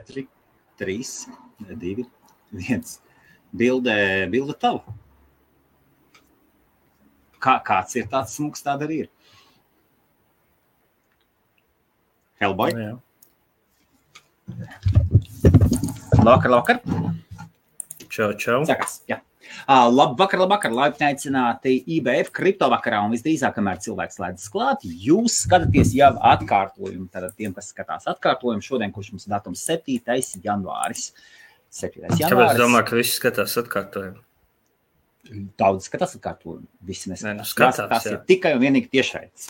4, 3, 2, 1. Bilde tava. Kāds ir tāds smuks, tāda arī ir. Hellboy. Jā. Labvakar. Čau. Sākās, jā. Labvakar, laipni aicināti IBF kriptovakarā un visdrīzāk, kamēr cilvēks slēdzas klāt, jūs skatāties jau atkārtojumu. Tātad tiem, kas skatās atkārtojumu, šodien, kurš mums datums 7. janvāris. 7. janvāris. Kāpēc domā, ka visi skatās atkārtojumu? Daudz skatās atkārtojumu. Visi neskatās. Skatās, tas ir tikai un vienīgi tiešraides.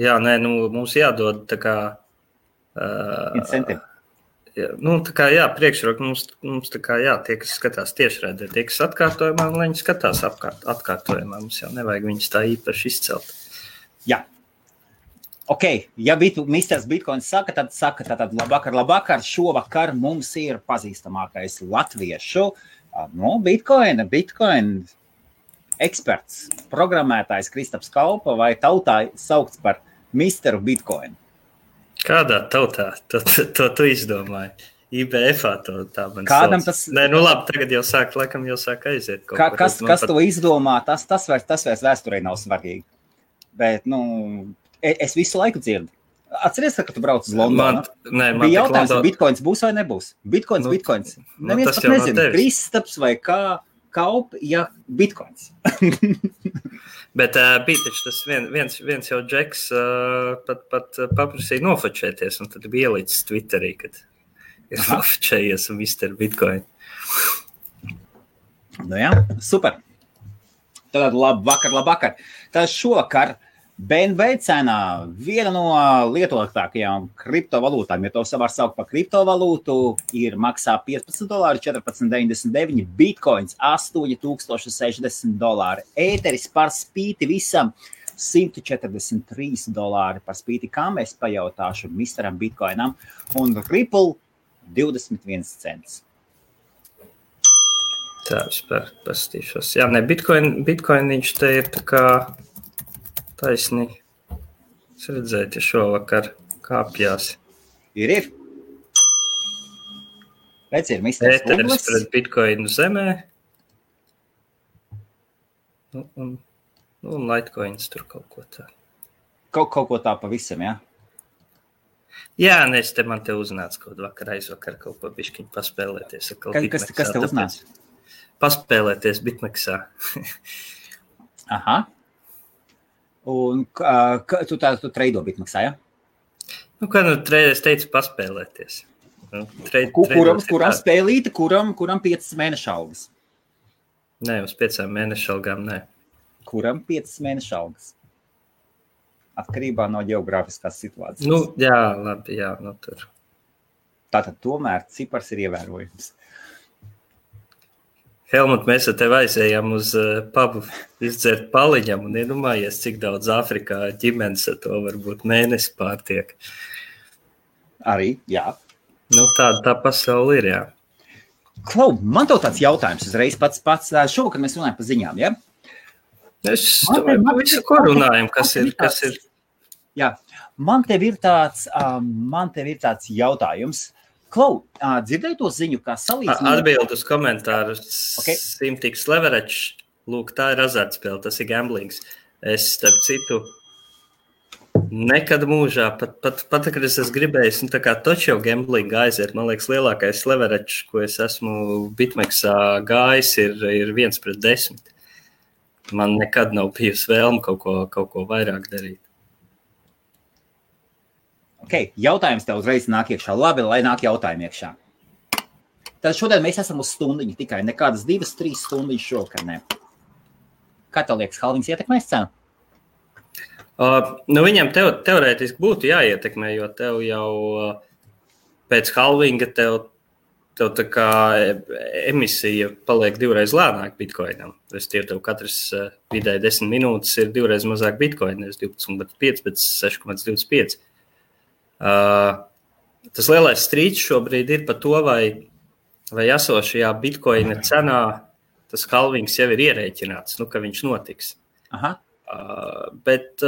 Jā, mums jādod tā kā... Incentivi. Tā kā priekšroka mums tā kā tie, kas skatās tiešraidē, tie, kas atkārtojumā, un viņi skatās atkārtojumā, mums jau nevajag viņus tā īpaši izcelt. Jā. Ok, ja Misters Bitcoins saka, tad labvakar, šovakar mums ir pazīstamākais latviešu, Bitcoin eksperts, programmētājs Kristaps Kaupa vai tautā saukts par Misteru Bitcoin. Kādā tautā? To tu izdomāji. IBF-ā tā man Kādam sauc. tas... Labi, tagad jau sāk aiziet. Kas to izdomā, tas vairs vēsturē nav svarīgi. Bet, es visu laiku dzirdu. Atceries, ka tu brauc uz Londonu? Bija jautājums, vai Bitcoins būs vai nebūs. Bitcoins. Neviens pat nezina, Kristaps vai Kaup, Bitcoins. Bet bija taču tas viens jau džeks pat paprasīja nofočēties, un tad bija ielicis Twitterī, kad ir nofočējies un Mr. Bitcoin. Jā, super. Tad labvakar. Tad šovakar BNB cenā viena no lietotākajām kriptovalūtām, ja to var saukt par kriptovalūtu, maksā $15, $14.99, Bitcoins $8,060, Ēteris par spīti visam $143 par spīti, kā mēs pajautāšu Misteram Bitcoinam, un Ripple 21 cents. Tā, vispār pastīšos. Jā, Bitcoin viņš te ir tā kā taisni. Es redzēju, ja šovakar kāpjās. Ir. Redz, ir Misters Ēteris pret Bitcoinu zemē. Un Litecoins tur kaut ko tā. Kaut ko tā pavisam, jā? Jā, man te uznāca kaut aizvakar kaut ko bišķiņ paspēlēties. Kas te uznāca? Paspēlēties Bitmexā. Aha. Un tu treido Bitmexā, ja? Es teicu paspēlēties. Kuram spēlīte, kuram 5 mēnešu algas? Nē, uz 5 mēnešu algām, nē. Kuram 5 mēnešu algas? Atkarībā no ģeogrāfiskās situācijas. Jā, labi, tur. Tātad tomēr cipars ir ievērojams. Helmut, mēs ar tevi aizējām uz pubu izdzert paliņam un iedomājies, cik daudz Āfrikā ģimenes ar to varbūt mēnesi pārtiek. Arī, jā. Tā pasaule ir, jā. Klau, man tev tāds jautājums uzreiz pats. Šovakar mēs runājam par ziņām, ja? Es domāju, visu, ko runājam, kas ir. Jā, man tev ir tāds jautājums. Klau, dzirdēji to ziņu, kā salīdzināt? Atbild uz komentāru. Simtiks leverage. Lūk, tā ir azartspēle, tas ir gamblings. Es, starp citu, nekad mūžā, pat kad es esmu gribējis, tā kā točo gambling aiziet, man liekas, lielākais leverage, ko es esmu Bitmexā gājis, ir 1/10. Man nekad nav bijusi vēlme kaut ko vairāk darīt. Ok, jautājums tev uzreiz nāk iekšā. Labi, lai nāk jautājumi iekšā. Tad šodien mēs esam uz stundiņu tikai. Nekādas 2-3 stundiņas šovakar, ne. Kā tev liekas, halvings ietekmēs cenu? Viņam teorētiski būtu jāietekmē, jo tev jau pēc halvinga tev tā kā emisija paliek 2reiz lēnāk Bitcoinam. Tev katrs vidēji 10 minūtes ir 2reiz mazāk Bitcoin, nevis 12,5, bet 6,25. Tas lielais strīds šobrīd ir par to, vai esošajā Bitcoina cenā tas halvings jau ir ierēķināts, ka viņš notiks. Aha. Bet,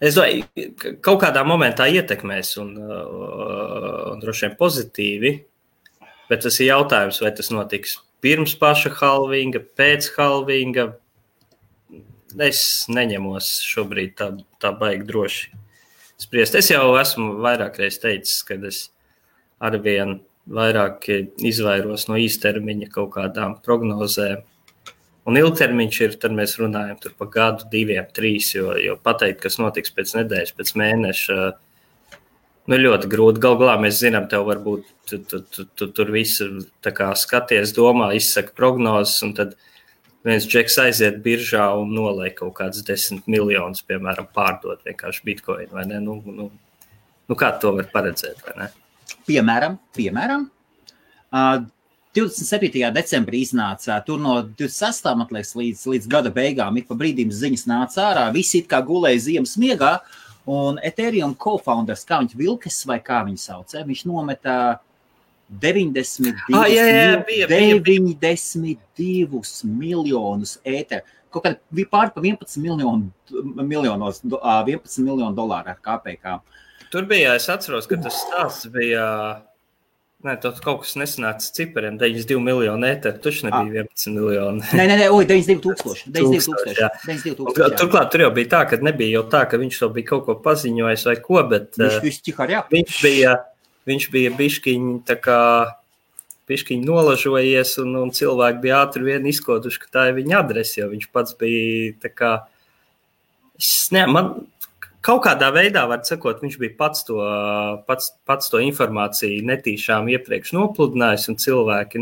Es domāju, kaut kādā momentā ietekmēs un droši vien pozitīvi, bet tas ir jautājums, vai tas notiks pirms paša halvinga, pēc halvinga. Es neņemos šobrīd tā baigi droši spriest. Es jau esmu vairākreiz teicis, kad es arvien vairāk izvairos no īstermiņa kaut kādām prognozēm. Un ilgtermiņš ir, tad mēs runājam tur pa gadu, 2, 3, jo pateikt, kas notiks pēc nedēļas, pēc mēneša, ļoti grūti. Galā mēs zinām, tev varbūt tu tur visu tā kā skaties, domā, izsaka prognozes, un tad viens džeks aiziet biržā un noliek kaut kāds 10 miljonus, piemēram, pārdot vienkārši bitcoin, vai ne? Kā to var paredzēt, vai ne? Piemēram, 27. decembrī iznāca, tur no 26. man liekas, līdz gada beigām, ik pa brīdīm ziņas nāca ārā, visi it kā gulēja ziemas miegā, un Ethereum co-founders, kā viņš Vilkes vai kā viņu sauc, viņš nometa 92 miljonus ēteru, kaut kādā pār pa 11 miljonu dolāru ar KPK. Tur bija, es atceros, ka tas stāsts bija... Nē, kaut kas nesanāca cipariem, 92 miljonu ēteru, taču nebija 11 miljoni. Nē, 92 tūkstoši. Turklāt tur jau bija tā, ka nebija jau tā, ka viņš to bija kaut ko paziņojis vai ko, bet viņš bija biškiņi tā kā biškiņi nolažojies un cilvēki bija ātri vien izkoduši, ka tā ir viņa adrese, jo viņš pats bija tā kā... Kaut kādā veidā, var sakot, viņš bija pats to informāciju netīšām iepriekš nopludinājis, un cilvēki,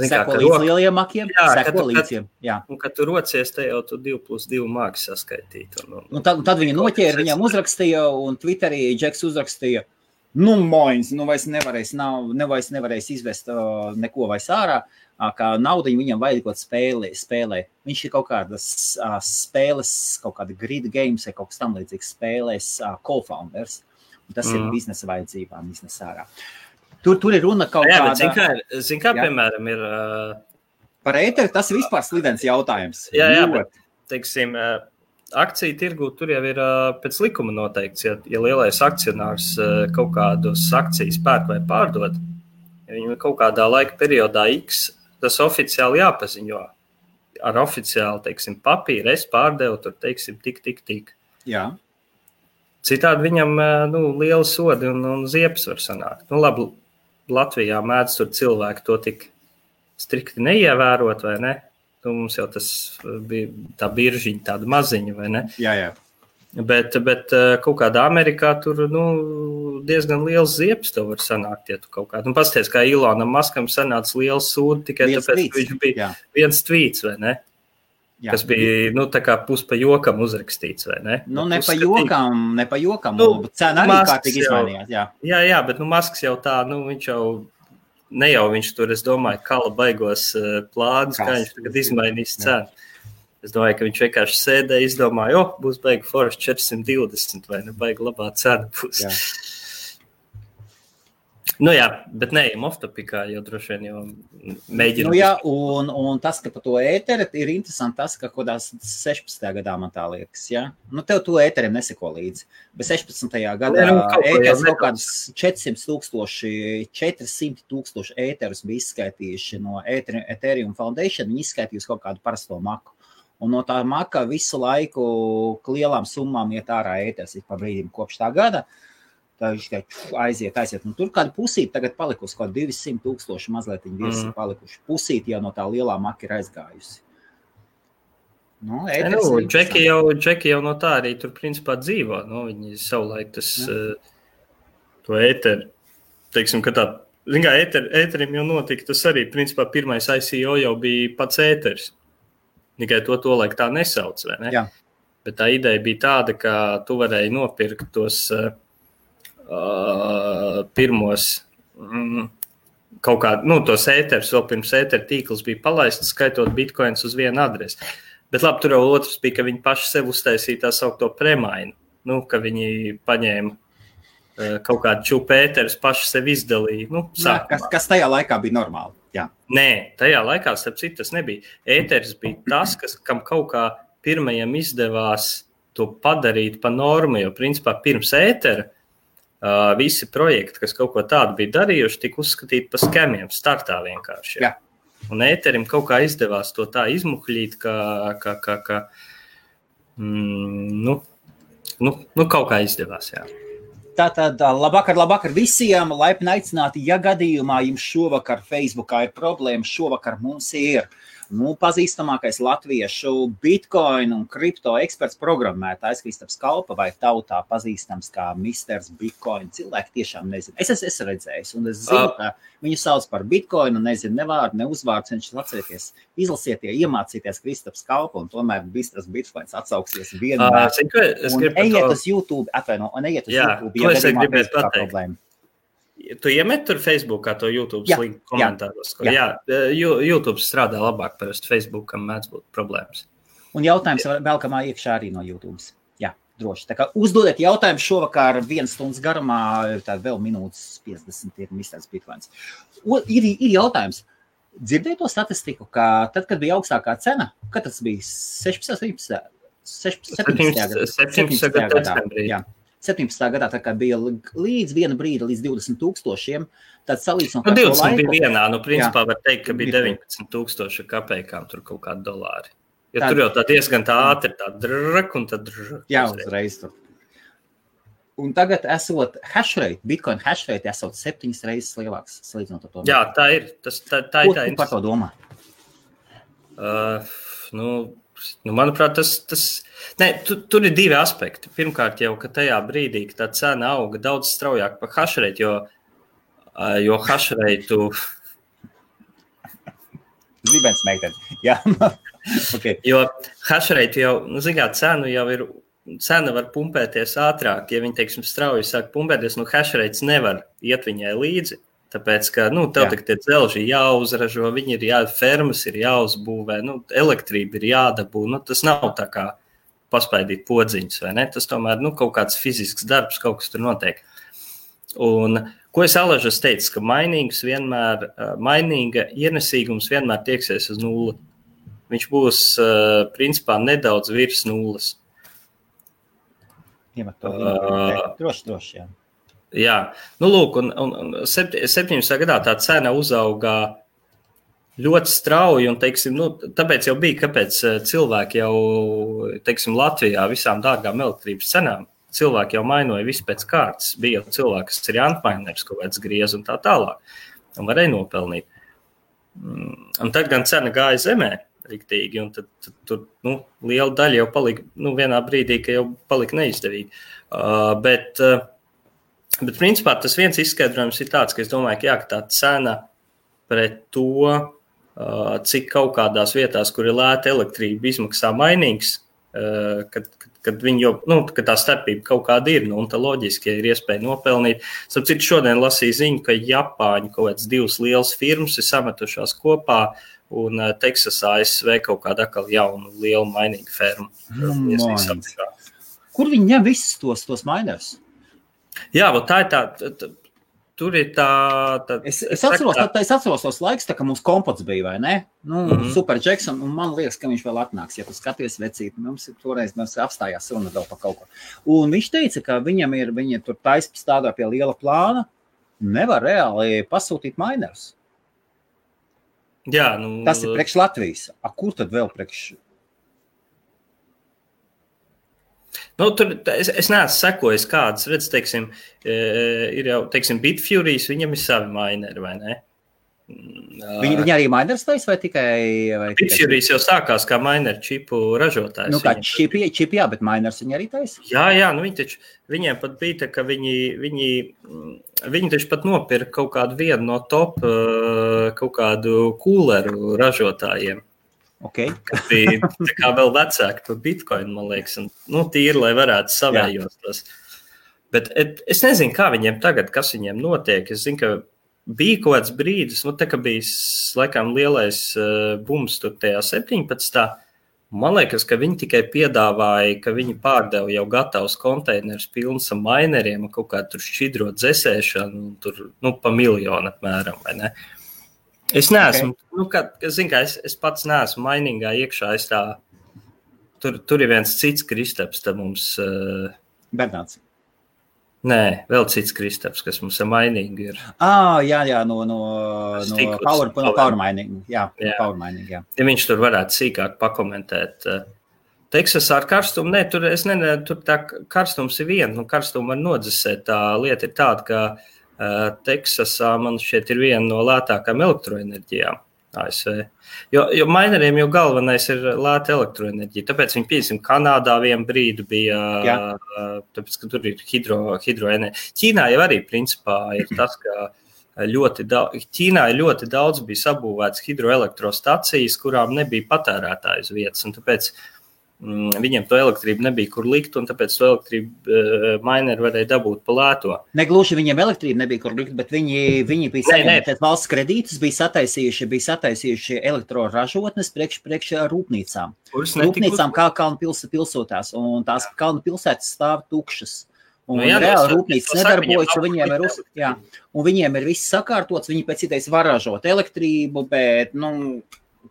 seko līdz lieliem makiem, seko līdz. Un, kad tu rocies, te jau tu 2+2 māki saskaitīt. Un tad viņi noķēra, viņam uzrakstīja, un Twitterī Džeks uzrakstīja, vairs nevarēs izvest neko vairs ārā, kā naudiņu viņam vajag kaut spēlē. Viņš ir kaut kādas spēles, kaut kāda grid games vai kaut kas tam līdzīgs spēlēs co-founders. Un tas ir biznesa vajadzībām, biznesa ārā. Tur ir runa kaut kāda... Zin kā, piemēram, ir... Par ēteri tas ir vispār slidens jautājums. Jā, bet, teiksim, akciju tirgū tur jau ir pēc likuma noteikts, ja lielais akcionārs kaut kādus akcijas pērk vai pārdod, ja viņam kaut kādā laika periodā X, tas oficiāli jāpaziņo. Ar oficiāli, teiksim, papīru es pārdevu, tur, teiksim, tik. Jā. Citādi viņam, liela sodi un ziepes var sanākt. Labi, Latvijā mēdz tur cilvēki to tik strikti neievērot, vai ne? Mums jau tas bija tā biržiņa, tāda maziņa, vai ne? Jā. Bet kaut kādā Amerikā tur, diezgan liels ziepes tev var sanākt, ja tu kaut kādā. Pasties, kā Ilonam Maskam sanāca liels sūdi, tikai tāpēc, ka viņš bija viens tvīts, vai ne? Jā. Kas bija, tā kā pus pa jokam uzrakstīts, vai ne? Ne pa jokam, cena arī kārtīgi izmainījās, jā. Jā, bet Masks jau tā, viņš jau, ne jau viņš tur, es domāju, kala baigos plānus, kā viņš tagad izmainīs cenu. Es domāju, ka viņš vienkārši sēdēja, izdomāja, būs baigi forši 420, vai ne, baigi labā cena būs. Jā, bet neejam off-topikā, jo droši vien jau mēģinām. Un tas, ka pa to ēteri ir interesanti tas, ka kodās 16. gadā man tā liekas, ja? Tev to ēteriem neseko līdzi. Bet 16. gadā ēteris kaut kādus 400 tūkstoši ēterus bija izskaitījuši no Ethereum Foundation, viņi izskaitījusi kaut kādu parasto maku. Un no tā maka visu laiku lielām summām iet ārā ēteris pa brīdim kopš tā gada. Tā viņš aiziet. Un tur kāda pusīte tagad palikusi, kaut 200 tūkstoši mazliet viņi virs ir palikuši. Pusīte jau no tā lielā maka ir aizgājusi. Džeki jau no tā arī tur principā dzīvo. Viņi savulaik to ēteri, teiksim, ka tā, zin kā, ēterim jau notika, tas arī principā pirmais ICO jau bija pats ēteris. Tikai to laik tā nesauc, vai ne? Jā. Bet tā ideja bija tāda, ka tu varēji nopirkt tos pirmos kaut kādu, tos ēterus, vēl pirms ēteru tīkls bija palaists, skaitot bitcoins uz vienu adresi. Bet labi, tur jau otrs bija, ka viņi paši sev uztaisīja tā saukto premainu, ka viņi paņēma kaut kādu čupu ēterus, paši sev izdalīja. Kas tajā laikā bija normāli. Jā. Nē, tajā laikā, starp citu, tas nebija. Ēteris bija tas, kam kaut kā pirmajam izdevās to padarīt pa normu, jo principā pirms ētera visi projekti, kas kaut ko tādu bija darījuši, tika uzskatīti par skemiem, startā vienkārši. Jā. Un ēterim kaut kā izdevās to tā izmuhļīt, ka kaut kā izdevās, jā. Tātad labvakar visiem, laipni aicināti, ja gadījumā jums šovakar Facebookā ir problēma, šovakar mums ir pazīstamākais latviešu Bitcoin un kripto eksperts programmētājs Kristaps Kalpa vai tautā pazīstams kā Misters Bitcoin. Cilvēki tiešām nezinu. Es esmu redzējis un es zinu, ka viņu sauc par Bitcoin un nezinu ne vārdu, ne uzvārds. Viņš atcerieties, izlasiet, iemācīties Kristaps Kalpa un tomēr Misters Bitcoins atsauksies vienmēr. Un ejiet uz YouTube, YouTube, ja gadījumā Facebookā problēma. Tu iemet tur Facebookā to YouTube linku komentāros? Jā, YouTube strādā labāk, parasti Facebookam mēdz būt problēmas. Un jautājums velkamā iekšā arī no YouTube. Jā, droši. Tā kā uzdodiet jautājumu šovakar 1 stundas garumā, tad vēl minūtes 50 ir Misters Bitcoins. Ir jautājums. Dzirdēju to statistiku, ka tad, kad bija augstākā cena, kad tas bija 17. gadā. Jā. 17. gadā, tā kā bija līdz viena brīda, līdz 20,000, tad salīdzinot ar to laiku. 20 bija vienā, principā var teikt, ka bija 19,000 kapeikām tur kaut kādi dolāri. Jo tur jau tā diezgan tā ātri, tā drrk un tad drrk. Jā, uzreiz tur. Un tagad esot hashrate, Bitcoin hashrate esot 7 reizes lielāks salīdzinot ar to. Jā, tā ir. Tā ir. Ko par to domā? Manuprāt, tur ir 2 aspekti. Pirmkārt jau, ka tajā brīdī, ka tā cena auga daudz straujāk par hashrate, jo hashrate... Zibens meiteni, jā. Okay. Jo hashrate jau, cena var pumpēties ātrāk, ja viņi, teiksim, strauji sāk pumpēties, hashrate nevar iet viņai līdzi. Tāpēc, ka, tev tik tie dzelži jāuzražo, viņi fermas ir jāuzbūvē, elektrība ir jādabū, tas nav tā kā paspaidīt podziņus, vai ne? Tas tomēr, kaut kāds fizisks darbs, kaut kas tur notiek. Un, ko es Alažas teicu, ka mainīga ienesīgums vienmēr tieksies uz 0. Viņš būs, principā, nedaudz virs 0. Iemet to droši, jā. Jā, lūk, un 17. gadā tā cena uzauga ļoti strauji, un, teiksim, tāpēc jau bija, kāpēc cilvēki jau, teiksim, Latvijā visām dārgām elektrības cenām, cilvēki jau mainoja visu pēc kārtas, bija jau cilvēki, kas ir antmainers, kaut kāds griez un tā tālāk, un varēja nopelnīt. Un tad gan cena gāja zemē riktīgi, un tad tur, liela daļa jau palika, vienā brīdī, ka jau palika neizdevīgi. Bet principā tas viens izskaidrojums ir tāds, ka es domāju, ka tā cena pret to, cik kaut kādās vietās, kur ir lēta elektrība, izmaksā mainīgs, kad viņi jau, ka tā starpība kaut kāda ir, un tā loģiski, ja ir iespēja nopelnīt. Starp citu, šodien lasīju ziņu, ka Japāņi kaut kāds 2 lielas firmas ir sametušās kopā, un Teksasā ASV kaut kāda atkal jaunu lielu mainīgu fermu. Kur viņi ņem visus tos mainers? Jā, tā ir tā, tur ir tā... Es atceros tos laikus, tā kā mums kompots bija, vai ne? Super Jackson, un man liekas, ka viņš vēl atnāks, ja tu skaties vecīt, mums apstājās runa vēl par kaut ko. Un viņš teica, ka viņi tur strādā pie liela plāna, nevar reāli pasūtīt mainers. Jā, tas ir priekš Latvijas. Kur tad vēl priekš? Es neesmu sekojis kādas, redz, teiksim, ir jau, teiksim, Bitfuries, viņam ir savi maineri, vai ne? Viņi arī mainers taisa vai tikai... Bitfuries jau sākās kā maineri čipu ražotājs. Kā čipi, jā, bet mainers viņi arī taisa? Jā, viņiem pat bija tā, ka viņi taču pat nopirka kaut kādu vienu no top, kaut kādu kūleru ražotājiem. Okay. Kas bija tā kā vēl vecāki par Bitcoin, man liekas, un tīri, lai varētu savējos tos. Bet es nezinu, kā viņiem tagad, kas viņiem notiek. Es zinu, ka bija kaut kāds brīdis, tā kā bija, laikam, lielais bums tur tajā 17. Man liekas, ka viņi tikai piedāvāja, ka viņi pārdeva jau gatavus konteinerus pilns ar maineriem, kaut kā tur šķidro dzesēšanu, tur, pa 1 miljonu apmēram, vai ne? Es neesmu, es pats neesmu mainīgā iekšā, es tur ir viens cits Kristaps, tad mums... Bernāts. Nē, vēl cits Kristaps, kas mums ar mainīgu ir. Jā, no Power Mining. Jā. Power Mining, jā. Ja viņš tur varētu sīkāk pakomentēt. Teksasā ar karstumu, tur tā karstums ir viena, karstumu var nodzesēt. Tā lieta ir tāda, ka Teksasā man šķiet ir viena no lētākām elektroenerģijām ASV. Jo mineriem jau galvenais ir lēta elektroenerģija, tāpēc viņi, piemēram, Kanādā vienu brīdi bija, tāpēc, ka tur ir hidroenerģija. Ķīnā jau arī, principā, ir tas, ka Ķīnā ļoti daudz bija sabūvēts hidroelektrostacijas, kurām nebija patērētāju uz vietas, un tāpēc viņiem to elektrību nebija kur likt, un tāpēc to elektrību mineri varēja dabūt pa lēto. Negluži viņiem elektrību nebija kur likt, bet viņi bija saņemti valsts kredītus, bija sataisījuši elektroražotnes priekš rūpnīcām. Rūpnīcām kā kalnu pilsētās, un tās kalnu pilsētas stāv tukšas. Un reāli rūpnīcas nedarbojas, un viņiem ir viss sakārtots, viņi pēc idejas var ražot elektrību, bet,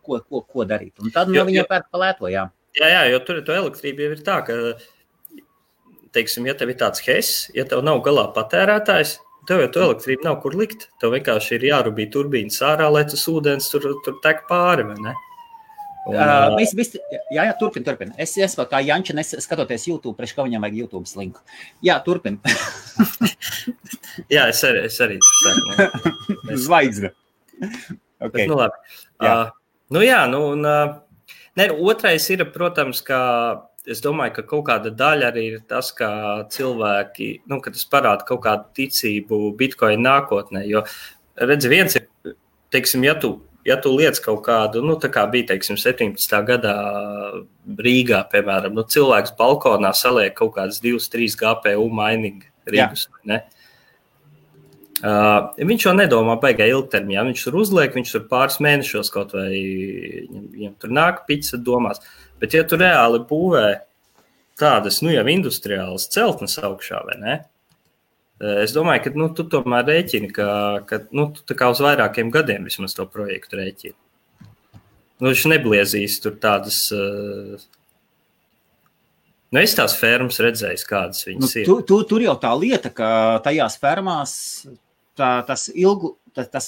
ko darīt? Un tad viņiem pērk pa lēto, Jā, jo tur to elektrība jau ir tā, ka, teiksim, ja tev ir tāds HES, ja tev nav galā patērētājs, tev jau to elektrību nav kur likt. Tev vienkārši ir jārubī turbīnas ārā, lai tas ūdens tur tek pāri, vai ne? Turpin. Es vēl kā Janča skatoties YouTube, priekš kā viņam vajag YouTube linku. Jā, turpin. Jā, es arī tur saku. Zvaigzne. Okay. Labi. Otrais ir, protams, ka es domāju, ka kaut kāda daļa arī ir tas, ka cilvēki, ka tas parāda kaut kādu ticību Bitcoin nākotnē, jo, redzi, viens ir, teiksim, ja tu liec kaut kādu, tā kā bija, teiksim, 17. gadā Rīgā, piemēram, cilvēks balkonā saliek kaut kādas 2-3 GPU mining rīgus, ne? Viņš jau nedomā baigā ilgtermiņā, viņš tur uzliek, viņš tur pāris mēnešos kaut vai viņam tur nāk pica domās, bet ja tu reāli būvē tādas, jau industriālas celtnes augšā, vai ne? Es domāju, ka, tu tomēr rēķini, ka tu tā kā uz vairākiem gadiem vismaz to projektu rēķini. Viņš nebliezīs tur tādas... es tās fermas redzējis, kādas viņas ir. Tur jau tā lieta, ka tajās fermās tas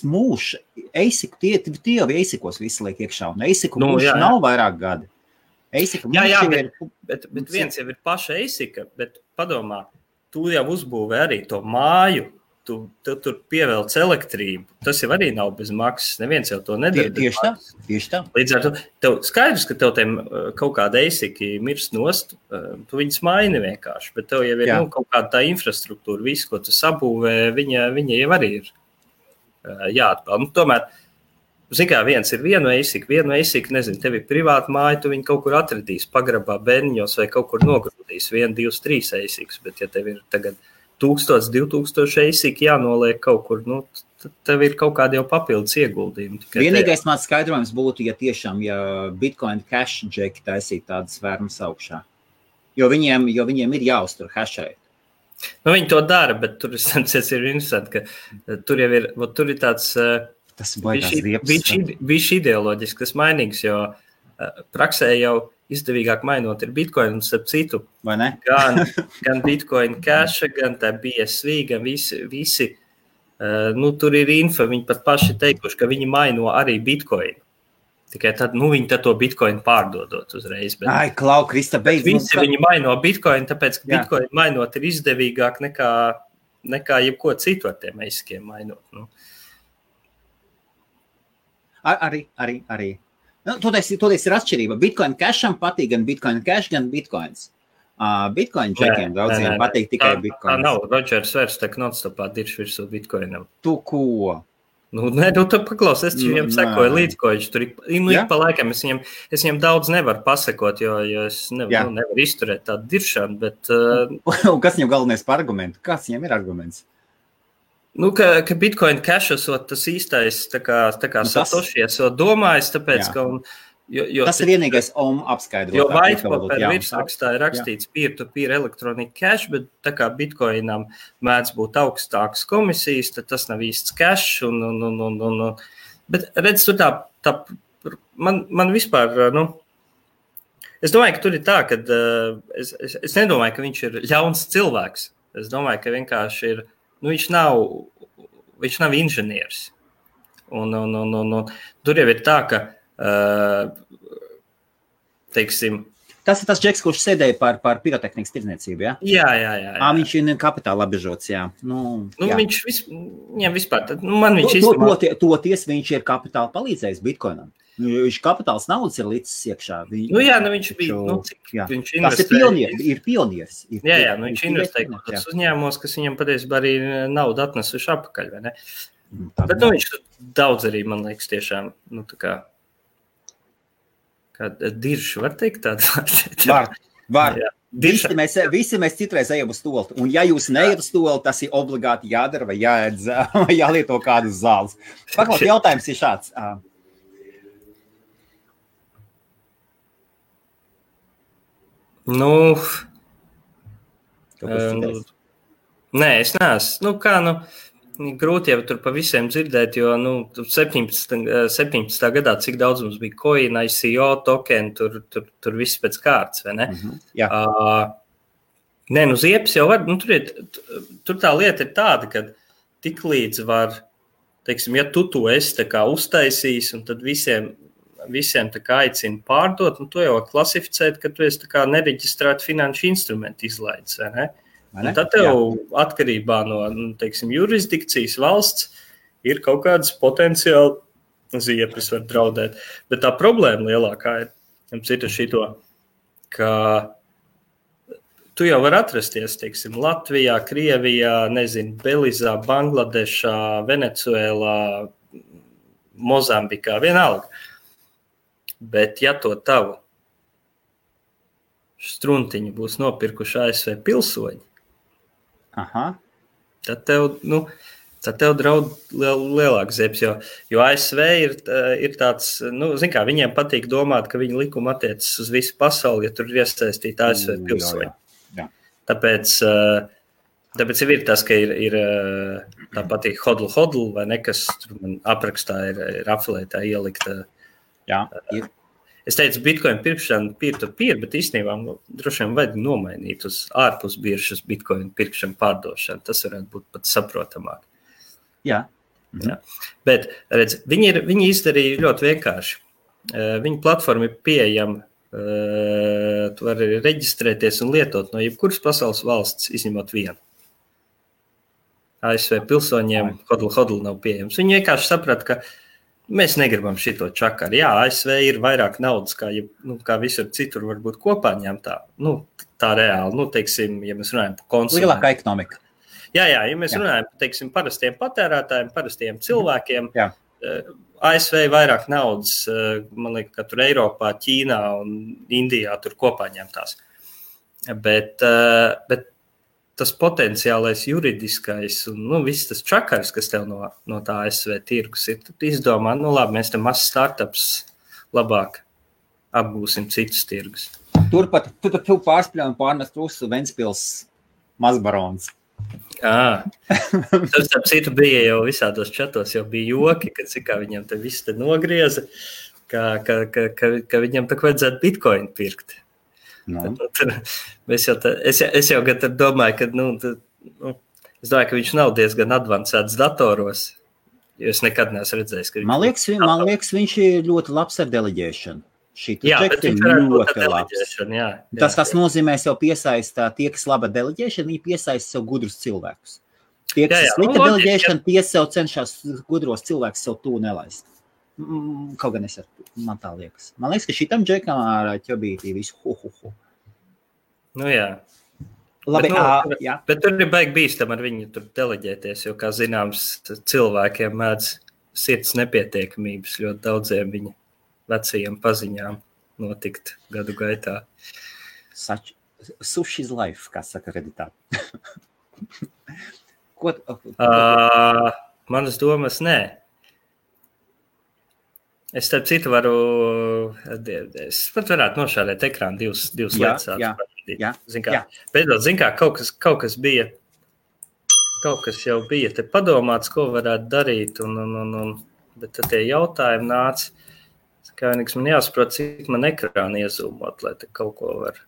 mūžs, tie jau eisikos visi liek iekšā, un eisiku mūžs nav vairāk gadi. Bet viens jau ir paša eisika, bet padomā, tu jau uzbūvē arī to māju, tu tur pievelc elektrību, tas jau arī nav bez maksas, neviens jau to nedara. Tieši tā. Līdz ar to, tev skaidrs, ka tev tiem kaut kāda eisiki mirst nost, tu viņas maini vienkārši, bet tev jau ir kaut kāda tā infrastruktūra, visu, ko tu sabūvē, viņa jau arī ir jāatpeld. Tomēr, kā viens ir vienu eisiku, nezinu, tev ir privāta māja, tu viņu kaut kur atradīs, pagrabā bērniņos vai kaut kur nogrūdīs 1, 2, 3 eisikus, bet ja tev ir tagad 1000, 2000 eisiki jānoliek kaut kur, tev ir kaut kādi jau papildus ieguldījumi. Vienīgais mans skaidrojums būtu, ja Bitcoin Cash džeki taisīt tādas fermas augšā. Jo viņiem ir jāuztur hashēt. Viņi to dara, bet tur ir interesanti, ka tur jau ir, tur ir tāds bišķi ideoloģisks mainīgs, jo praksē jau izdevīgāk mainot ir Bitcoin, un starp citu, gan Bitcoin Cash, gan tā BSV, gan visi tur ir info, viņi pat paši teikuši, ka viņi maino arī Bitcoin. Tikai tad, viņi tad to Bitcoin pārdodot uzreiz. Bet, Krista, beidz. Visi viņi maino Bitcoin, tāpēc, ka Bitcoin mainot ir izdevīgāk nekā jebko citu ar tiem eiskiem mainot. Arī. Toties ir atšķirība. Bitcoin Casham patīk gan Bitcoin Cash, gan Bitcoins. Bitcoin džekiem daudziem patīk tikai Bitcoins. Tā nav. Rodžers vairs tā non-stopā dirš virsū Bitcoinam. Tu ko? Tu paklaus, es viņam sekoju līdz, ko viņš tur ik pa laikam. Es viņam daudz nevaru pasakot, jo es nevaru izturēt tādu diršanu, bet... Un kas viņam galvenais par argumentu? Kāds viņam ir arguments? Ka Bitcoin Cash esot tas īstais, tā kā Satoshi esot domājis, tāpēc, ka... Tas ir vienīgais apskaidrot. Jo whitepaper virsrakstā ir rakstīts peer-to-peer electronic cash, bet tā kā Bitcoinam mēdz būt augstākas komisijas, tad tas nav īsts cash. Bet redz, tur tā man vispār, Es domāju, ka tur ir tā, ka es nedomāju, ka viņš ir ļauns cilvēks. Es domāju, ka vienkārši ir, viņš nav inženieris. Un tur jau ir tā, ka, teiksim... Tas ir tas džeks, kurš sēdēja par pirotehnikas tirdzniecību, ja? Jā. Viņš ir kapitāla apbežots, jā. Jā. Viņš vispār, man viņš Toties viņš ir kapitāla palīdzējis Bitcoinam. Viņš kapitāls naudas ir līdzis iekšā. Viņš bija, viņš investēja. Tas ir pionieris. Viņš investēja kādos uzņēmumos, kas viņam patiesībā arī naudu atnesuši apakaļ, vai ne? Bet viņš daudz arī, man liekas, tiešām, kā diršu, var teikt tādu? Var. Visi mēs citreiz ejam uz stolti. Un ja jūs neiet uz stolti, tas ir obligāti jādara vai jāēdz, vai jālieto kādas zāles. Paklaus, jautājums ir šāds. Nē, es neesmu. Grūti jau tur pa visiem dzirdēt, jo 17. gadā, cik daudz mums bija coin, ICO, token, tur viss pēc kārtas, vai ne? Jā. Ziepes jau var, tur tā lieta ir tāda, ka tik līdz var, teiksim, ja tu to esi tā kā uztaisījis, un tad visiem tā kā aicina pārdot, un to jau var klasificēt, ka tu esi tā kā nereģistrētu finanšu instrumentu izlaidis, vai ne? Un tad tev atkarībā no, teiksim, jurisdikcijas valsts ir kaut kādas potenciāli ziepes var draudēt. Bet tā problēma lielākā ir šito, ka tu jau var atrasties, teiksim, Latvijā, Krievijā, Belizā, Bangladešā, Venecuēlā, Mozambikā, vienalga. Bet ja to tavu struntiņu būs nopirkuši ASV pilsoņi, tad tev draud lielāks ziepes, jo ASV ir tāds, zin kā, viņiem patīk domāt, ka viņa likuma attiecas uz visu pasauli, ja tur ir iesaistīti ASV pilsoņi. Jā. Tāpēc jau ir tas, ka ir tā patīk hodl, vai ne, kas man aprakstā ir afilētā ielikta. Jā, ir. Es teicu, Bitcoin pirkšana peer-to-peer, bet īstenībā droši vien vajag nomainīt uz ārpus biržas Bitcoin pirkšanu pārdošanu. Tas varētu būt pat saprotamāk. Jā. Jā. Bet, redz, viņi izdarīja ļoti vienkārši. Viņa platforma ir pieejama. Tu vari reģistrēties un lietot no jebkuras pasaules valsts, izņemot vienu. ASV pilsoņiem hodl nav pieejams. Viņi vienkārši saprata, ka mēs negribam šito čakaru. Jā, ASV ir vairāk naudas, kā visur citur varbūt kopā ņemtā. Tā reāli, teiksim, ja mēs runājam par konsumentu. Lielākā ekonomika. Jā, ja mēs runājam par, teiksim, parastiem patērētājiem, parastiem cilvēkiem, ASV vairāk naudas, man liekas, ka tur Eiropā, Ķīnā un Indijā tur kopā ņemtās. Bet tas potenciālais juridiskais un viss tas čakars, kas tev no tā ASV tirgus ir, tad izdomā, labi, mēs te mazs startups labāk apgūsim citus tirgus. Turpat tu pārspļauj un pārnest uz Ventspils mazbarons. Tas ap citu bija jau visādos čatos, jau bija joki, kad kā viņam te viss te nogrieza, ka viņam tak vajadzētu Bitcoin pirkt. Es jau domāju, ka es domāju, ka viņš nav diezgan advancēts datoros, jo es nekad neesmu redzējis, ka man liekas, viņš ir ļoti labs ar deleģēšanu. Jā, bet viņš varētu būt ar deleģēšanu, jā. Tas nozīmēs jau piesaistā tie, kas laba deleģēšana, viņi piesaista sev gudrus cilvēkus. Tie, kas slikta deleģēšana, tie sev cenšas gudros cilvēkus sev tū nelaist. Kaut gan man tā liekas. Man liekas, ka šitam džekam ar ķobītī visu Jā. Labi, bet tur ir baigi bīstam ar viņu tur deleģēties, jo, kā zināms, cilvēkiem mēdz sirds nepietiekamības ļoti daudziem viņa vecajiem paziņām notikt gadu gaitā. Sushi's life, kā saka Redditā. Manas domas, nē. Es starp citu es pat varētu nošādēt ekrānu divas lietas. Jā. Zin kā, kaut kas bija, kaut kas jau bija te padomāts, ko varētu darīt, bet tad tie jautājumi nāca. Kā vienīgs man jāsaprot, cik man ekrāna iezūmot, lai te kaut ko var.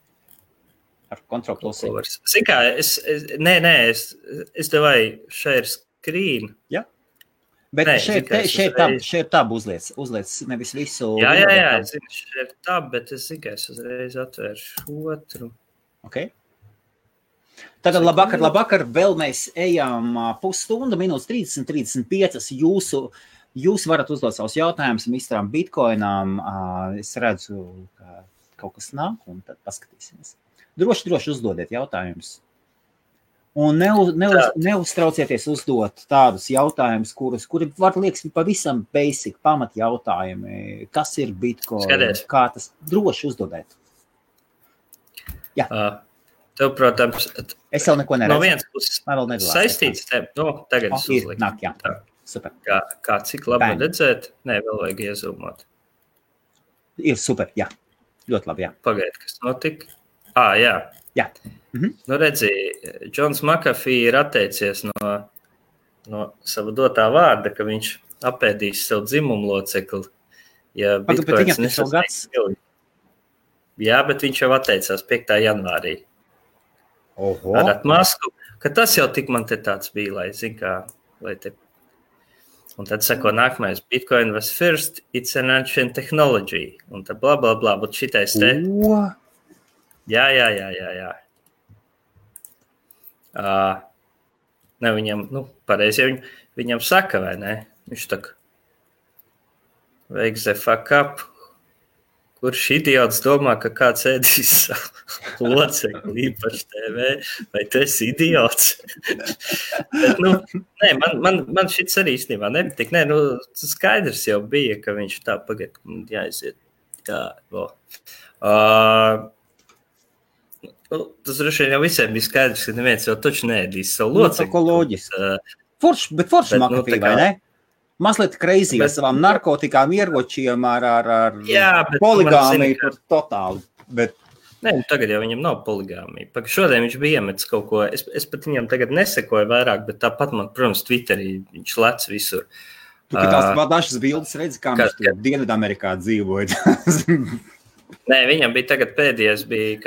Ar kontrol plusi. Zin kā, es devai share screen. Jā. Bet šeit tab uzliec nevis visu. Jā, es zinu, šeit tab, bet es zinu, ka es uzreiz atvēršu otru. Ok. Tagad labvakar, vēl mēs ejam pusstundu, minūtes 30-35. Jūs varat uzdot savus jautājumus Mistram Bitcoinām. Es redzu, ka kaut kas nāk, un tad paskatīsimies. Droši uzdodiet jautājumus. Un neuztraucieties uzdot tādus jautājumus, kuri var liekas pavisam basic, pamat jautājumi. Kas ir Bitcoin? Skaties. Kā tas droši uzdodiet? Jā. Tev, protams, es vēl neko neredzu. No vienas puses saistīts tev. Tagad es uzliku. Nāk, jā. Super. Kā cik labi redzēt? Nē, vēl vajag iezūmot. Ir super, jā. Ļoti labi, jā. Pagaid, kas notika? Jā. Jā. Mhm. Nu, redzi, Džons McAfee ir atteicies no sava dotā vārda, ka viņš apēdīs sev dzimumu locekli. Ja Bitcoins nesasniedz. Jā, bet viņš jau atteicās 5. janvārī. Oho. Ar atmasku, ka tas jau tik man te tāds bija, lai zin kā, lai te. Un tad sako nākamais, Bitcoin was first, it's an ancient technology. Un tad bla, bla, bla, bet šitais te. Jā. Ne, viņam, pareizi, viņam saka, vai ne? Viņš tak, wake the fuck up. Kurš idiots domā, ka kāds ēdīs savu locekli īpaši TV, vai tu esi idiots? Bet, nē, man šits arī īstenībā nepatīk. Nē, skaidrs jau bija, ka viņš tā pagad, jāiziet. Jā, tas droši vien jau visiem bija skaidrs, ka neviens jau taču neēdīs savu locekli. Tā loģiski. Forši McAfee, vai ne? Mazliet crazy ar savām narkotikām, ieročiem, ar poligāmiju, tur totāli. Bet... Nē, tagad jau viņam nav poligāmija. Šodien viņš bija iemetis kaut ko, es pat viņam tagad nesekoju vairāk, bet tāpat man, protams, Twitterī viņš lec visur. Tu tās dažas bildes redzi, kā viņš tur Dienvidamerikā dzīvoja. Nē, viņam bija tagad pēdējais, bija,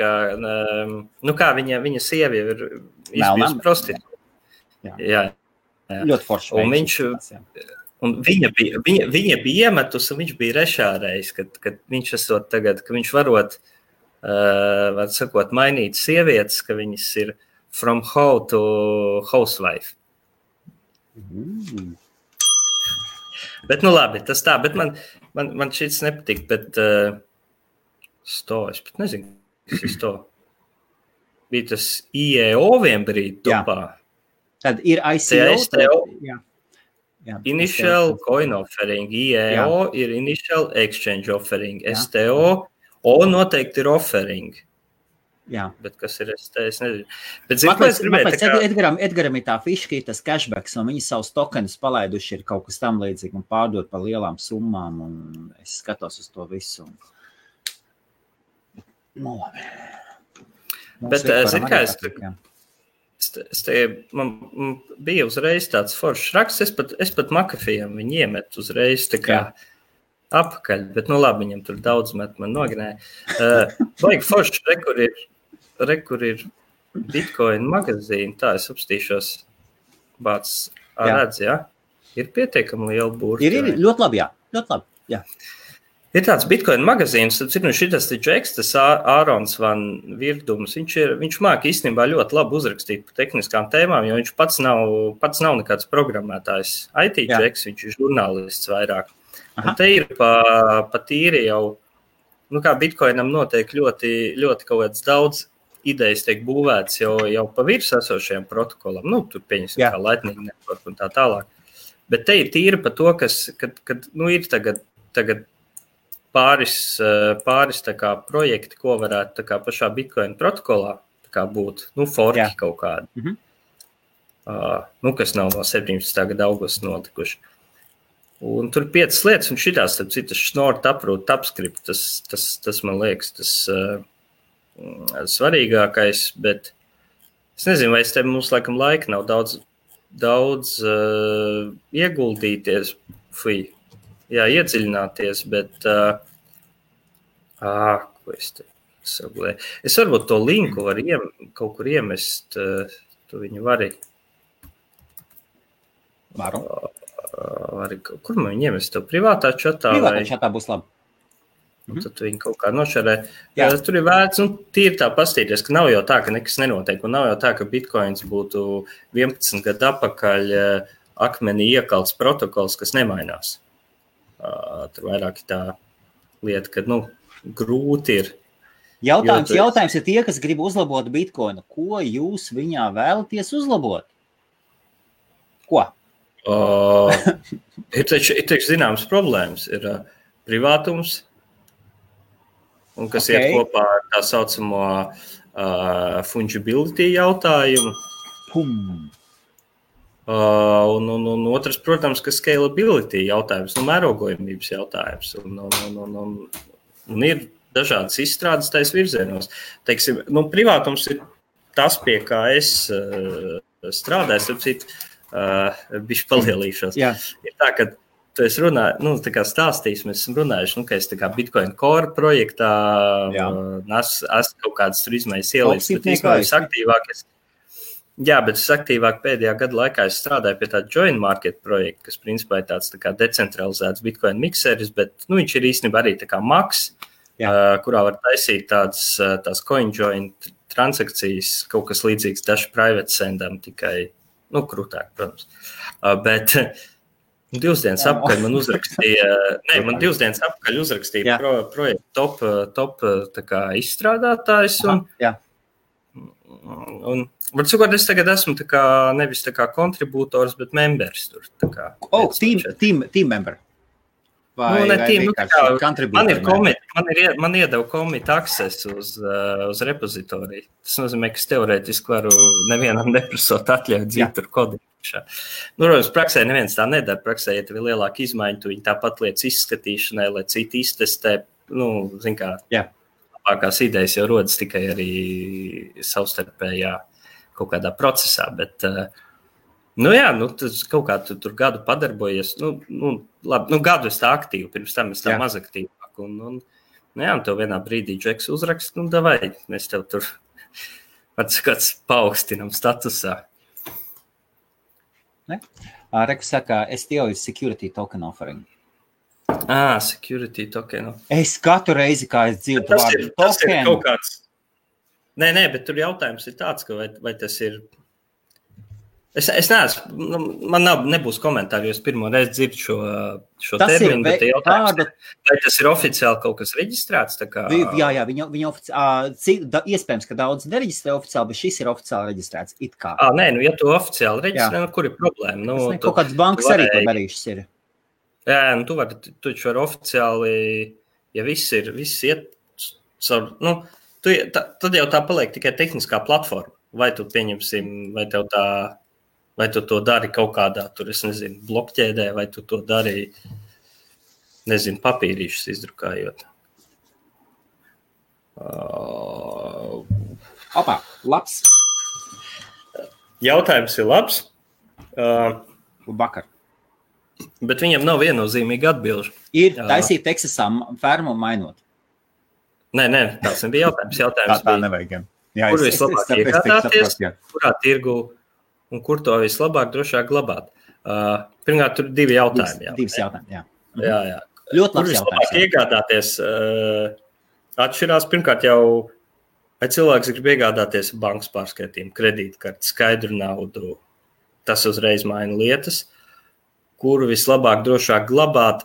kā viņa sievi ir izbijusi prostitūta. Jā. Ļoti forši. Un viņš... Un viņa bija iemetus, un viņš bija rešārējis, kad viņš esot tagad, ka viņš varot, var sakot, mainīt sievietes, ka viņas ir from hoe to housewife. Bet, labi, tas tā, bet man šits nepatīk, bet es pat nezinu, kas ir sto. Bija tas IEO vienbrīd topā. Tad ir ICO. Jā, initial coin offering, IEO ir initial exchange offering, STO, O noteikti ir offering. Jā. Bet kas ir ST, es nezinu. Bet es gribēju Edgaram ir tā fiška, ir tas cashbacks, un viņi savus tokenus palaiduši ir kaut kas tam līdzīgi un pārdot par lielām summām, un es skatos uz to visu. Labi. Bet, zin kā man bija uzreiz tāds foršs raksts, es pat McAfee'am viņu iemetu uzreiz tā kā apakaļ, bet labi, viņam tur daudz met man noganēja. Vajag foršs, kur ir Bitcoin magazīni, tā es apstīšos bāc redz, jā? Ir pietiekami liela burta. Ir ļoti labi, ļoti labi, jā. Ir tāds Bitcoin magazīns, šitas Džeks, tas Ārons Van Virdums, viņš māk īstenībā ļoti labi uzrakstīt par tehniskām tēmām, jo viņš pats nav nekāds programmētājs. IT Džeks, viņš ir žurnālists vairāk. Un te ir pa tīri jau, kā Bitcoinam notiek ļoti, ļoti kaut kāds daudz idejas tiek būvēts jau pa virs esošajiem protokolam. Tur pieņemsim kā Lightning Network un tā tālāk. Bet te ir tīri pa to, kad ir tagad pāris tā kā projekti, ko varētu tā kā pašā Bitcoin protokolā tā kā būt, forki kaut kādi. Kas nav no 17. gada augusta notikuši. Un tur 5 lietas, un šitās, starp citu, Schnorr, Taproot, TypeScript, tas man liekas, tas svarīgākais, bet es nezinu, vai mums laikam laika nav daudz ieguldīties. iedziļināties, bet ko es te saglēju? Es varbūt to linku var kaut kur iemest, tu viņu vari. Varu. Kur man viņu iemest? Tev privātā čatā? Privātā čatā būs labi. Un tad viņi kaut kā nošarē. Tur ir vērts, tīri tā pastīties, ka nav jau tā, ka nekas nenotiek, un nav jau tā, ka Bitcoins būtu 11 gadu atpakaļ akmenī iekalts protokols, kas nemainās. Tur vairāk tā lieta, ka, grūti ir. Jautājums ir tie, kas grib uzlabot Bitcoinu. Ko jūs viņā vēlaties uzlabot? Ko? Ir taču zināmas problēmas. Ir privātums, un kas iet kopā ar tā saucamo fungibility jautājumu. Un otrs, protams, ka scalability jautājums, mērogojamības jautājums. Un ir dažādas izstrādes tais virzienos. Teiksim, privātums ir tas, pie kā es strādāju, starp citu, bišķi palielīšos. Jā. Ir tā, ka tu esi runāju, tā kā stāstījis, mēs esam runājuši, ka es tā kā Bitcoin Core projektā esmu kaut kādas tur izmaiņas ielīdz, bet es aktīvāk bet es aktīvāk pēdējā gada laikā es strādāju pie tāda joint market projekta, kas principā ir tāds tā kā decentralizēts Bitcoin mikseris, bet viņš ir īstenībā arī tā kā Max, kurā var taisīt tās coin joint transakcijas, kaut kas līdzīgs Dash Private Sendam, tikai krūtāk, protams. Bet 2 dienas apakaļ man uzrakstīja, projektu top tā kā izstrādātājs. Un var sakot, es tagad esmu tā kā, nevis tā kā kontribūtors, bet members tur. Tā kā, team member. Man iedeva commit access uz repozitoriju. Tas nozīmē, ka es teorētiski varu nevienam neprasot atļaut dzīt tur kodīšā. Protams, praksē neviens tā nedara. Praksē, ja tev ir lielāka izmaiņa, tu viņi tāpat lietas izskatīšanai, lai citi iztestē, zin kā, labākās idejas jau rodas tikai arī savstarpējā kaut kādā procesā, bet tas kaut kā tur gadu padarbojies. Gadu es tā aktīvi, pirms tam es tā maz aktīvāk. Un tev vienā brīdī Džeks uzrakst, davai, mēs tev tur kāds paaugstinam statusā. Reku saka, STO is security token offering. Security token. Es katru reizi, kā es dzirdu vārdu token. Tas ir kaut kāds. Nē, bet tur jautājums ir tāds, ka vai tas ir. Es neesmu, man nebūs komentāri, jo es pirmo reizi dzirdu šo terminu, bet jautājums, vai tas ir oficiāli kaut kas reģistrēts? Tā kā... Jā, viņa oficiāli, iespējams, ka daudz nereģistrē oficiāli, bet šis ir oficiāli reģistrēts, it kā. Nē, ja tu oficiāli reģistrē, kur ir problēma? Kaut kāds bankas arī to darīšas ir. Jā, tu taču vari oficiāli, ja viss iet caur, tad jau tā paliek tikai tehniskā platforma. Vai tu pieņemsim, vai tu to dari kaut kādā, tur, es nezinu, blokķēdē, vai tu to dari, nezinu, papīrīšus izdrukājot. Labs. Jautājums ir labs. Vakar. Bet viņam nav viennozīmīga atbilžu. Ir taisīt Texasā fermu mainot. Nē, tās nebija jautājums. Tā nevajag. Kur vislabāk iegādāties, kurā tirgu un kur to vislabāk drošāk glabāt? Pirmkārt, tur 2 jautājumi. Divas jautājumi, jā. Jā. Ļoti labs jautājums. Kur vislabāk iegādāties? Atšķirās pirmkārt jau, vai cilvēks grib iegādāties bankas pārskaitījumu, kredītkarti, skaidru naudu. Tas uzreiz maina lietas. Kuru vislabāk drošāk glabāt?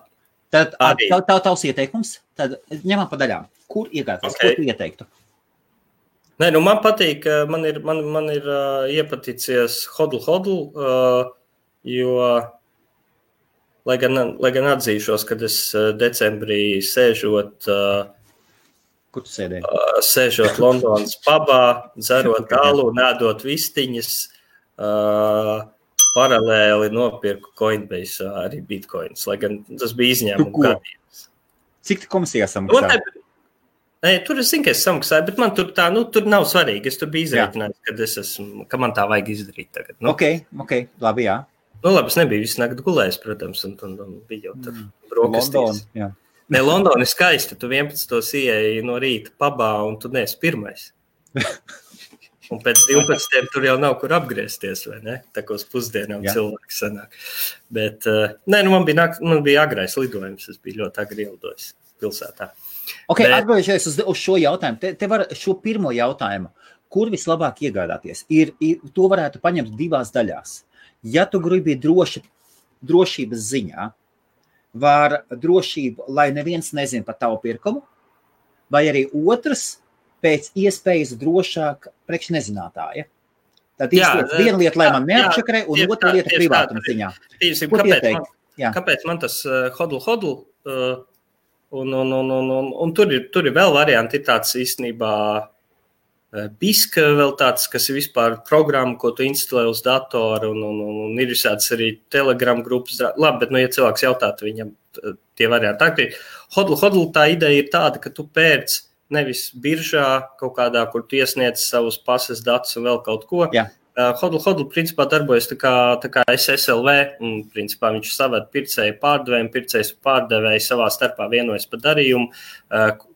Tad tavs ieteikums, tad ņemam pa daļām. Kur iegādāties? Ko tu ieteiktu? Nē, man patīk, man ir iepaticies hodl, jo, lai gan atzīšos, kad es decembrī sēžot, kur tu sēdēji? Sēžot Londonas pubā, dzerot alu, nēdot vistiņas, paralēli nopirku Coinbase arī Bitcoins, lai gan tas bija izņēmumu gadījums. Cik tu komisijā samaksāji? Nē, tur es zinu, ka es samaksāju, bet man tur tā, tur nav svarīgi. Es tur biju izreikinājis, ka man tā vajag izdarīt tagad. Ok, labi, jā. Nu, labi, es nebiju visu nakti gulējis, protams, un bija jau tur brokastīs. Ne, Londona ir skaista. Tu 11. ieeji no rīta pabā, un tu neesi pirmais. Un pēc 12. tur jau nav kur apgriezties, vai ne? Tā kā uz pusdienām cilvēki sanāk. Bet, man bija agrais lidojums. Es biju ļoti agri ielidojis pilsētā. Ok, atgriežoties uz šo jautājumu. Te var šo pirmo jautājumu. Kur vislabāk iegādāties? To varētu paņemt divās daļās. Ja tu gribi drošības ziņā, var drošību, lai neviens nezin par tavu pirkumu, vai arī otrs pēc iespējas drošāk priekš nezinātāja. Tad viena lieta, lai man neapčakarē, un otra lieta privātuma ziņā. Kāpēc man tas hodl, un tur ir vēl varianti, ir tāds īstenībā Biska vēl tāds, kas ir vispār programma, ko tu instalē uz datoru, un ir visāds arī Telegram grupas. Labi, bet, ja cilvēks jautātu viņam tie varianti. Tā, hodl tā ideja ir tāda, ka tu pērc nevis biržā kaut kādā, kur tu iesniedz savus pases datus un vēl kaut ko. Jā. Hodl principā darbojas tā kā SSLV, un principā viņš saved pircēju pārdevēju, pircējs pārdevēju savā starpā vienojas par darījumu,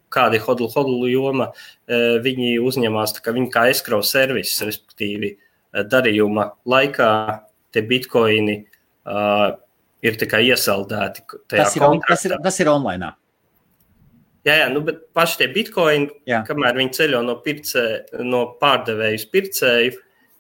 kādi hodl joma, viņi uzņemās, tā kā viņi kā escrow servis, respektīvi darījuma laikā tie bitkoini ir tā kā iesaldēti tajā kontraktā. Tas ir online. Jā, bet paši tie bitkoini, kamēr viņi ceļo no pārdevēju uz pircēju,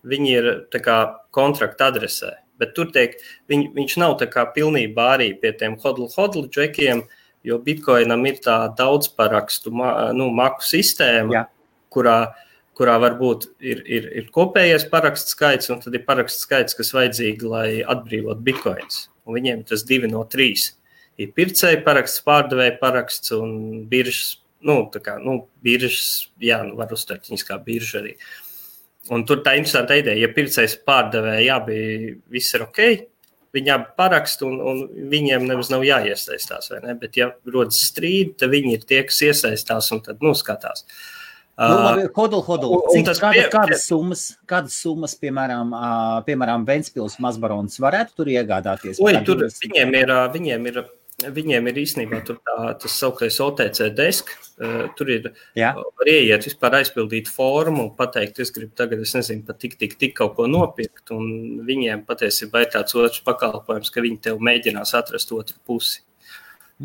viņi ir tā kā kontrakta adresē. Bet tur viņš nav tā kā pilnībā arī pie tiem hodl džekiem, jo bitkoinam ir tā daudzparakstu maku sistēma, kurā varbūt ir kopējais parakstu skaits, un tad ir parakstu skaits, kas vajadzīgi, lai atbrīvot bitkoins. Un viņiem tas 2 no 3. Ir pircēja paraksts, pārdevēja paraksts un biržas, biržas, var uztvert viņas kā birža arī. Un tur tā interesanta ideja, ja pircējs pārdevēja, bija viss ir ok, viņi abi parakst, un viņiem nemaz nav jāiesaistās, vai ne? Bet, ja rodas strīdi, tad viņi ir tie, kas iesaistās un tad skatās. Hodl. Kādas summas, piemēram, Ventspils Mazbarons varētu tur iegādāties? Viņiem ir īstenībā tur tas sauktais OTC desk, tur ir var ieiet vispār aizpildīt formu un pateikt, es gribu tagad, es nezinu, pat tik kaut ko nopirkt, un viņiem patiesībā ir tāds otrs pakalpojums, ka viņi tev mēģinās atrast otru pusi.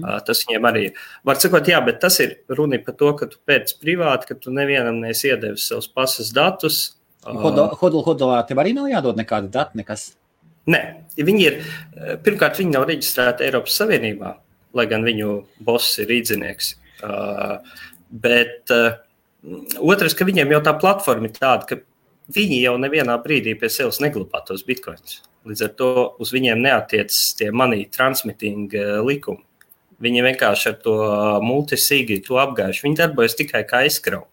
Tas viņiem arī ir. Var sakot, bet tas ir runa par to, ka tu pēc privāti, ka tu nevienam neesi iedevis savus pasas datus. Hodlā tev arī nav jādod nekāda data, nekas? Nē, pirmkārt, viņi nav reģistrēti Eiropas Savienībā, lai gan viņu boss ir rīdzinieks. Bet otrs, ka viņiem jau tā platforma ir tāda, ka viņi jau nevienā brīdī pie sevis neglabā tos bitcoins. Līdz ar to uz viņiem neatiec tie money transmitting likumi. Viņi vienkārši ar to multisīgi to apgājuši. Viņi darbojas tikai kā escrow.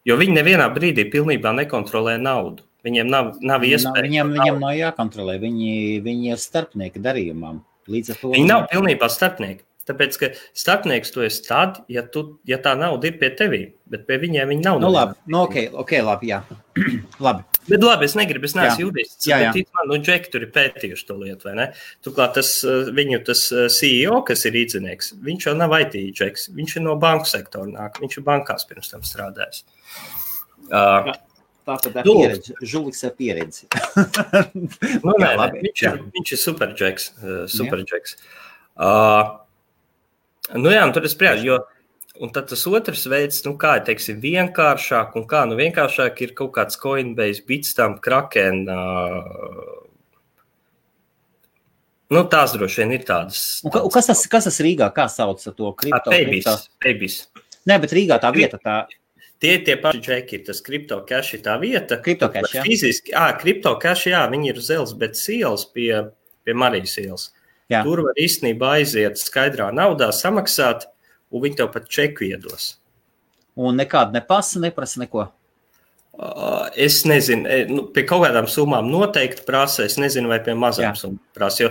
Jo viņi nevienā brīdī pilnībā nekontrolē naudu. Viņiem nav iespēja. Viņiem nav jākontrolē. Viņi ir starpnieki darījumam. Līdz ar to viņi nav pilnībā starpnieki. Tāpēc, ka starpnieks tu esi tad, ja tā nauda ir pie tevī, bet pie viņiem viņi nav. Ok, labi, jā. Labi. Bet labi, es neesmu jurists, bet man, Džeki tur ir pētījuši to lietu, vai ne? Turklāt viņu CEO, kas ir rīdzinieks, viņš jau nav IT Džeks, viņš ir no banku sektora nāk, viņš ir bankās pirms tam strādājis. Tātad pieredzi, Žuliks ar pieredzi. Viņš ir super Džeks. Un tur es spriežu, jo un tad tas otrs veids, kā teiksim, vienkāršāk, un kā vienkāršāk ir kaut kāds Coinbase, Bitstamp, Kraken, tās droši vien ir tādas. Kas tas Rīgā, kā sauc to kripto? Paybis. Nē, bet Rīgā tā vieta tā. Tie paši džeki ir, tas CryptoCash ir tā vieta. CryptoCash, jā. Fiziski, CryptoCash, jā, viņi ir uz Elzbetes ielas pie Marijas ielas. Jā. Tur var īstenībā aiziet skaidrā naudā, samaksāt, un viņi tev pat čeku iedos. Un nekāda nepasa, neprasa neko? Es nezinu, pie kaut kādām summām noteikti prasa, es nezinu, vai pie mazām summām prasa, jo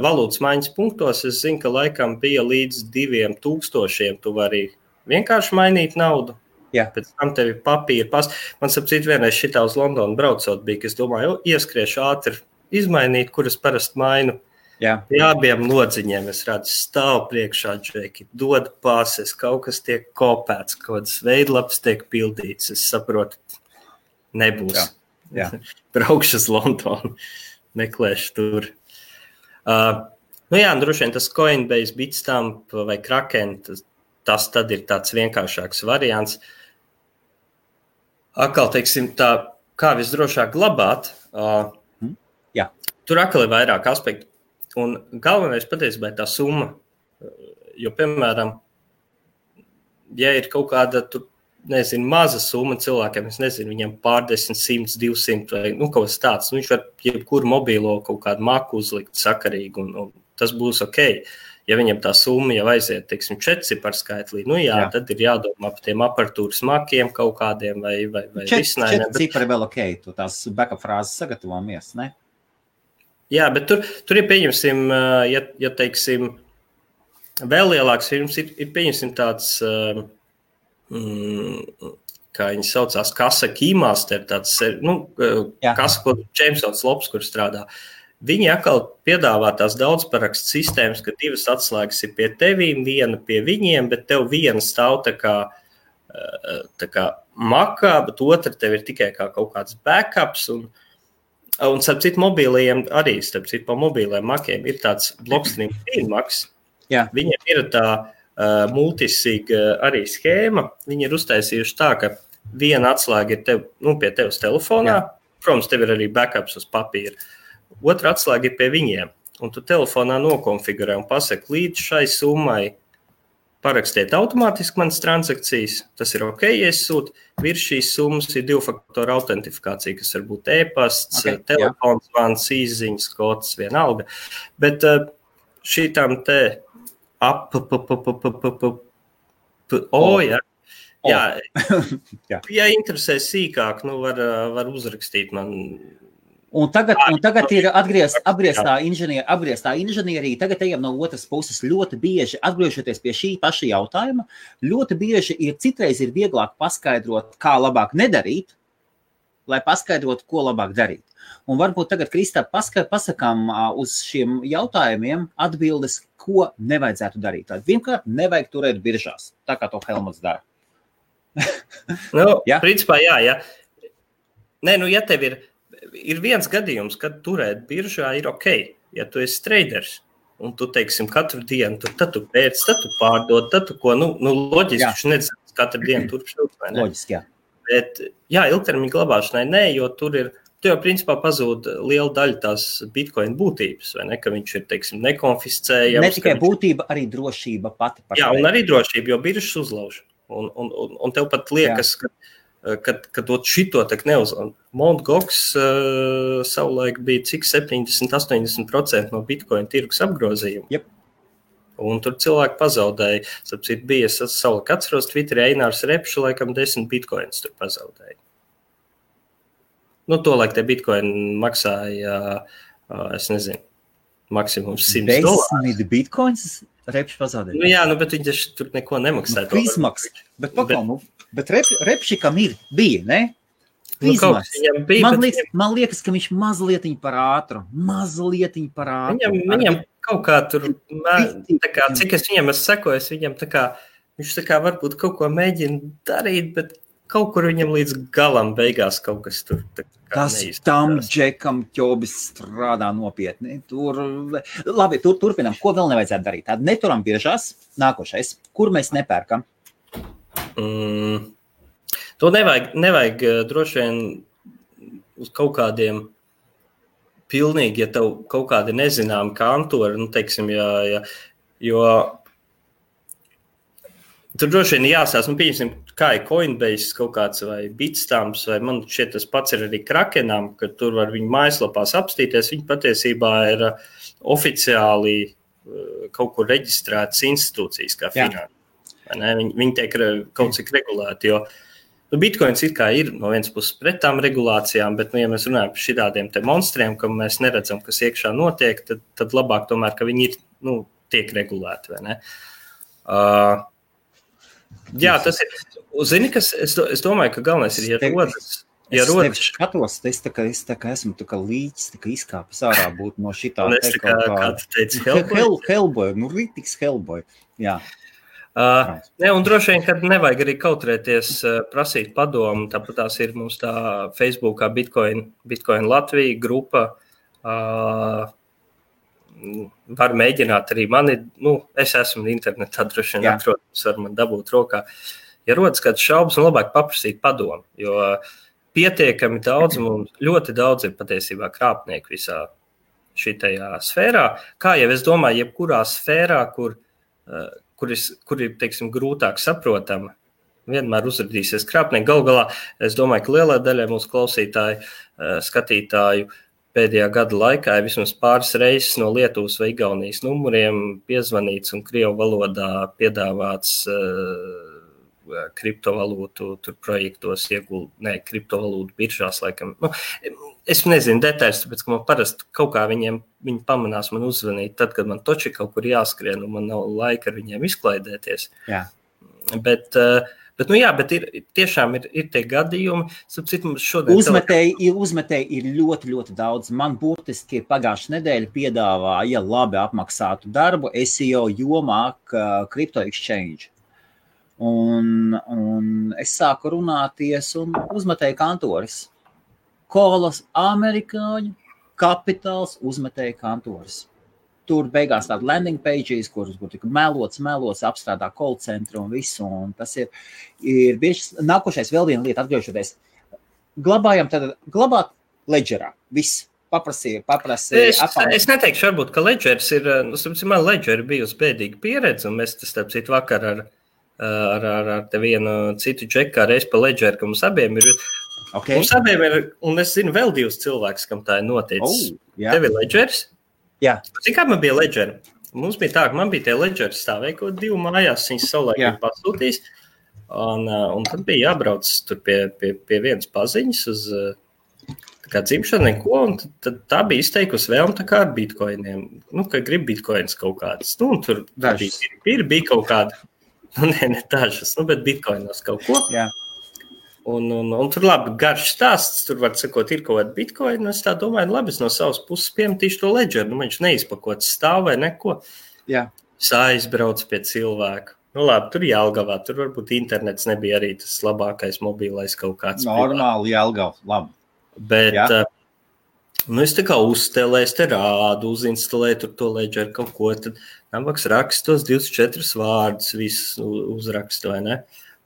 valūtas maiņas punktos es zinu, ka laikam bija līdz 2000 tu vari vienkārši mainīt naudu. Jā. Pēc tam tev ir papīra pas. Man sapcīt vienreiz šitā uz Londonu braucot bija, ka es domāju, ieskriešu ātri izmainīt, kuras parasti mainu. Jā. Pie abiem lodziņiem es redzu stāv priekšā džeki, dod pases, kaut kas tiek kopēts, kaut kādas veidlapas tiek pildīts. Es saprotu, nebūs. Jā. Braukšu uz Londonu, meklēšu tur. Droši vien tas Coinbase, Bitstamp vai Kraken, tas tad ir tāds vienkāršāks variants. Atkal, teiksim, tā, kā visdrošāk glabāt, tur atkal ir vairāk aspektu. Un galvenais patiesībā ir tā summa. Jo, piemēram, ja ir kaut kāda, tur, nezinu, maza summa cilvēkiem, es nezinu, viņam pārdesmit, 100, 200 vai kaut kas tāds, viņš var jebkuru mobīlo kaut kādu maku uzlikt sakarīgi un tas būs ok. Ja viņam tā summa jau aiziet, teiksim, 4 ciparskaitlī, tad ir jādomā par tiem aparatūras makiem kaut kādiem vai risinājumiem. 4 cipari vēl ok, tu tās backup frāzes sagatavojamies, ne? Jā, bet tur ir, pieņemsim, ja teiksim, vēl lielāks firmas ir pieņemsim tāds, kā viņi saucās, kasa Keymaster, tāds, kasa, ko Jamesons Lobs, kur strādā. Viņi atkal piedāvā tās daudzparakstu sistēmas, ka 2 atslēgas ir pie tevīm, 1 pie viņiem, bet tev 1 stāv tā kā makā, bet otra tev ir tikai kā kaut kāds backups un starp citu mobīlajiem arī, pa mobīlajiem makiem ir tāds Blockstream Maks. Viņiem ir tā multisig arī schēma. Viņi ir uztaisījuši tā, ka 1 atslēga ir pie tevis telefonā. Protams, tev ir arī backups uz papīra. Otra atslēga ir pie viņiem. Un tu telefonā nokonfigurē un pasaki līdz šai summai parakstiet automātiski manas transakcijas, tas ir ok, ja es sūtu. Virs šīs summas ir 2-faktoru autentifikācija, kas var būt e-pasts, telefons, zvans, īsziņas, kods, vienalga. Bet šītām te ja interesē sīkāk, var uzrakstīt man. Un tagad ir apgrieztā inženierija, tagad ejam no otras puses ļoti bieži, atgriežoties pie šī paša jautājuma, ļoti bieži citreiz ir vieglāk paskaidrot, kā labāk nedarīt, lai paskaidrotu, ko labāk darīt. Un varbūt tagad, Kristap, pasakām uz šiem jautājumiem atbildes, ko nevajadzētu darīt. Tad vienkārt nevajag turēt biržās, tā kā to Helmuts dara. Principā jā. Nē, ja tev ir viens gadījums, kad turēt biržā ir ok, ja tu esi traders, un tu, teiksim, katru dienu, tad tu pēc, tad tu pārdod, tad tu ko, loģiski, viņš nezināts katru dienu turpšūt, vai ne? Loģiski, jā. Bet, ilgtermiņa glabāšanai nē, jo tu jau principā pazūd liela daļa tās Bitcoin būtības, vai ne, ka viņš ir, teiksim, nekonfiscējams. Ne tikai būtība, arī drošība pati par un arī drošība, jo biržas uzlauž. Un tev pat liekas, ka šito tak neuzlauž. Mt. Gox savulaik bija cik 70-80% no Bitcoin tirgus apgrozījuma. Yep. Un tur cilvēki pazaudēja. Sapcīt, bija savulaik atceros Twitterī Einārs Repšu, laikam 10 Bitcoins tur pazaudēja. Tolaik te Bitcoin maksāja, es nezinu, maksimums $100. 10 Bitcoins Repši pazaudēja? Bet viņš tur neko nemaksāja. Izmaksas. Bet Repšikam bija, ne? Man liekas, ka viņš mazlietiņ par ātru. Viņam kaut kā tur, cik es viņam sekoju, viņš varbūt kaut ko mēģina darīt, bet kaut kur viņam līdz galam beigās kaut kas tur neizskatās. Tam džekam ķobis strādā nopietni. Labi, turpinām. Ko vēl nevajadzētu darīt? Tāda neturam biržās. Nākošais. Kur mēs nepērkam? To nevajag droši vien uz kaut kādiem pilnīgi, ja tev kaut kādi nezināmi kantori, teiksim, jo tur droši vien jāsās, pieņemsim, kā ir Coinbase kaut kāds vai Bitstamps, vai man šķiet tas pats ir arī Krakenam, ka tur var viņu mājaslapās apstīties, viņi patiesībā ir oficiāli kaut kur reģistrētas institūcijas kā finanses. Viņi tiek kaut cik regulēti, jo Bitcoins it kā ir no vienas puses pret tām regulācijām, bet, ja mēs runājam par šitādiem te monstriem, ka mēs neredzam, kas iekšā notiek, tad labāk tomēr, ka viņi ir, tiek regulēti, vai ne? Tas ir, zini, kas, es domāju, ka galvenais ir, ja rodas Es tevi skatos, es tā kā esmu tā kā līķis, tā kā izkāpis ārā būt no šitā. Un es tā kā tu teici, Hellboy, rītīgs Hellboy, jā. Un droši vien, kad nevajag arī kautrēties prasīt padomu, tāpat tās ir mums tā Facebookā Bitcoin Latvija grupa, var mēģināt arī mani, es esmu internetā, droši vien atrodams, var man dabūt rokā. Ja rodas kāds šaubas, labāk paprasīt padomu, jo pietiekami daudz, mums ļoti daudz ir patiesībā krāpnieku visā šitajā sfērā. Kā jau es domāju, jebkurā sfērā, kur ir, teiksim, grūtāk saprotama, vienmēr uzrādīsies krāpnieki. Galu galā, es domāju, ka lielā daļai mūsu klausītāju, skatītāju pēdējā gada laikā ir vismaz pāris reizes no Lietuvas vai Igaunijas numuriem piezvanīts un krievu valodā piedāvāts kriptovalūtu tur projektos kriptovalūtu biržās, laikam. Es nezinu detaļas, tāpēc, ka man parasti kaut kā viņi pamanās man uzvanīt, tad, kad man toči kaut kur jāskrien un man nav laika ar viņiem izklaidēties. Jā. Bet tiešām ir tie gadījumi. Uzmetēji ir ļoti, ļoti daudz. Man burtiski pagājušā nedēļa piedāvāja labi apmaksātu darbu SEO jomā Crypto Exchange. Un es sāku runāties un uzmetēju kantoris. Kolas amerikāņu, kapitāls uzmetēju kantoris. Tur beigās tāda landing pages, kur tika melots, apstrādā call centru un visu. Un tas ir bieži nākošais vēl viena lieta, atgriežoties. Glabāt ledgerā. Viss. Paprasīja. Es neteikšu, varbūt, ka ledgers ir, man ledger bijusi bēdīga pieredze, un mēs tas, starp citu, vakar ar te vienu citu džeku reiz pa ledgeru, ka mums abiem ir. Okay. Mums abiem ir, un es zinu vēl divus cilvēkus, kam tā ir noticis. Tev ir ledgers? Jā. Cik kā man bija ledgeri? Mums bija tā, ka man bija tie ledgeri stāvēja kaut 2 mājās, viņas savulaik pasūtīs, un tad bija jābrauc tur pie vienas paziņas uz kā dzimšanu neko, un tad tā bija izteikusi vēlme tā kā ar bitcoiniem. Ka grib bitcoins kaut kāds. Un tur bija kaut kāda, ne dažas, bet bitcoinos kaut ko. Jā. Un tur labi garš stāsts, tur var sakot, ir kaut kāda bitcoin, un es tā domāju, labi, es no savas puses piemetīšu to ledgeru, viņš neizpakots stāv vai neko. Jā. Es aizbraucu pie cilvēka. Labi, tur Jelgavā, tur varbūt internets nebija arī tas labākais mobilais kaut kāds. Normāli Jelgava, labi. Bet, es tā kā uzstelēju, es te rādu, uzinstalēju tur to ledgeru kaut ko, tad nabaks rakstu tos 24 vārdus, visus uzrakstu, vai ne?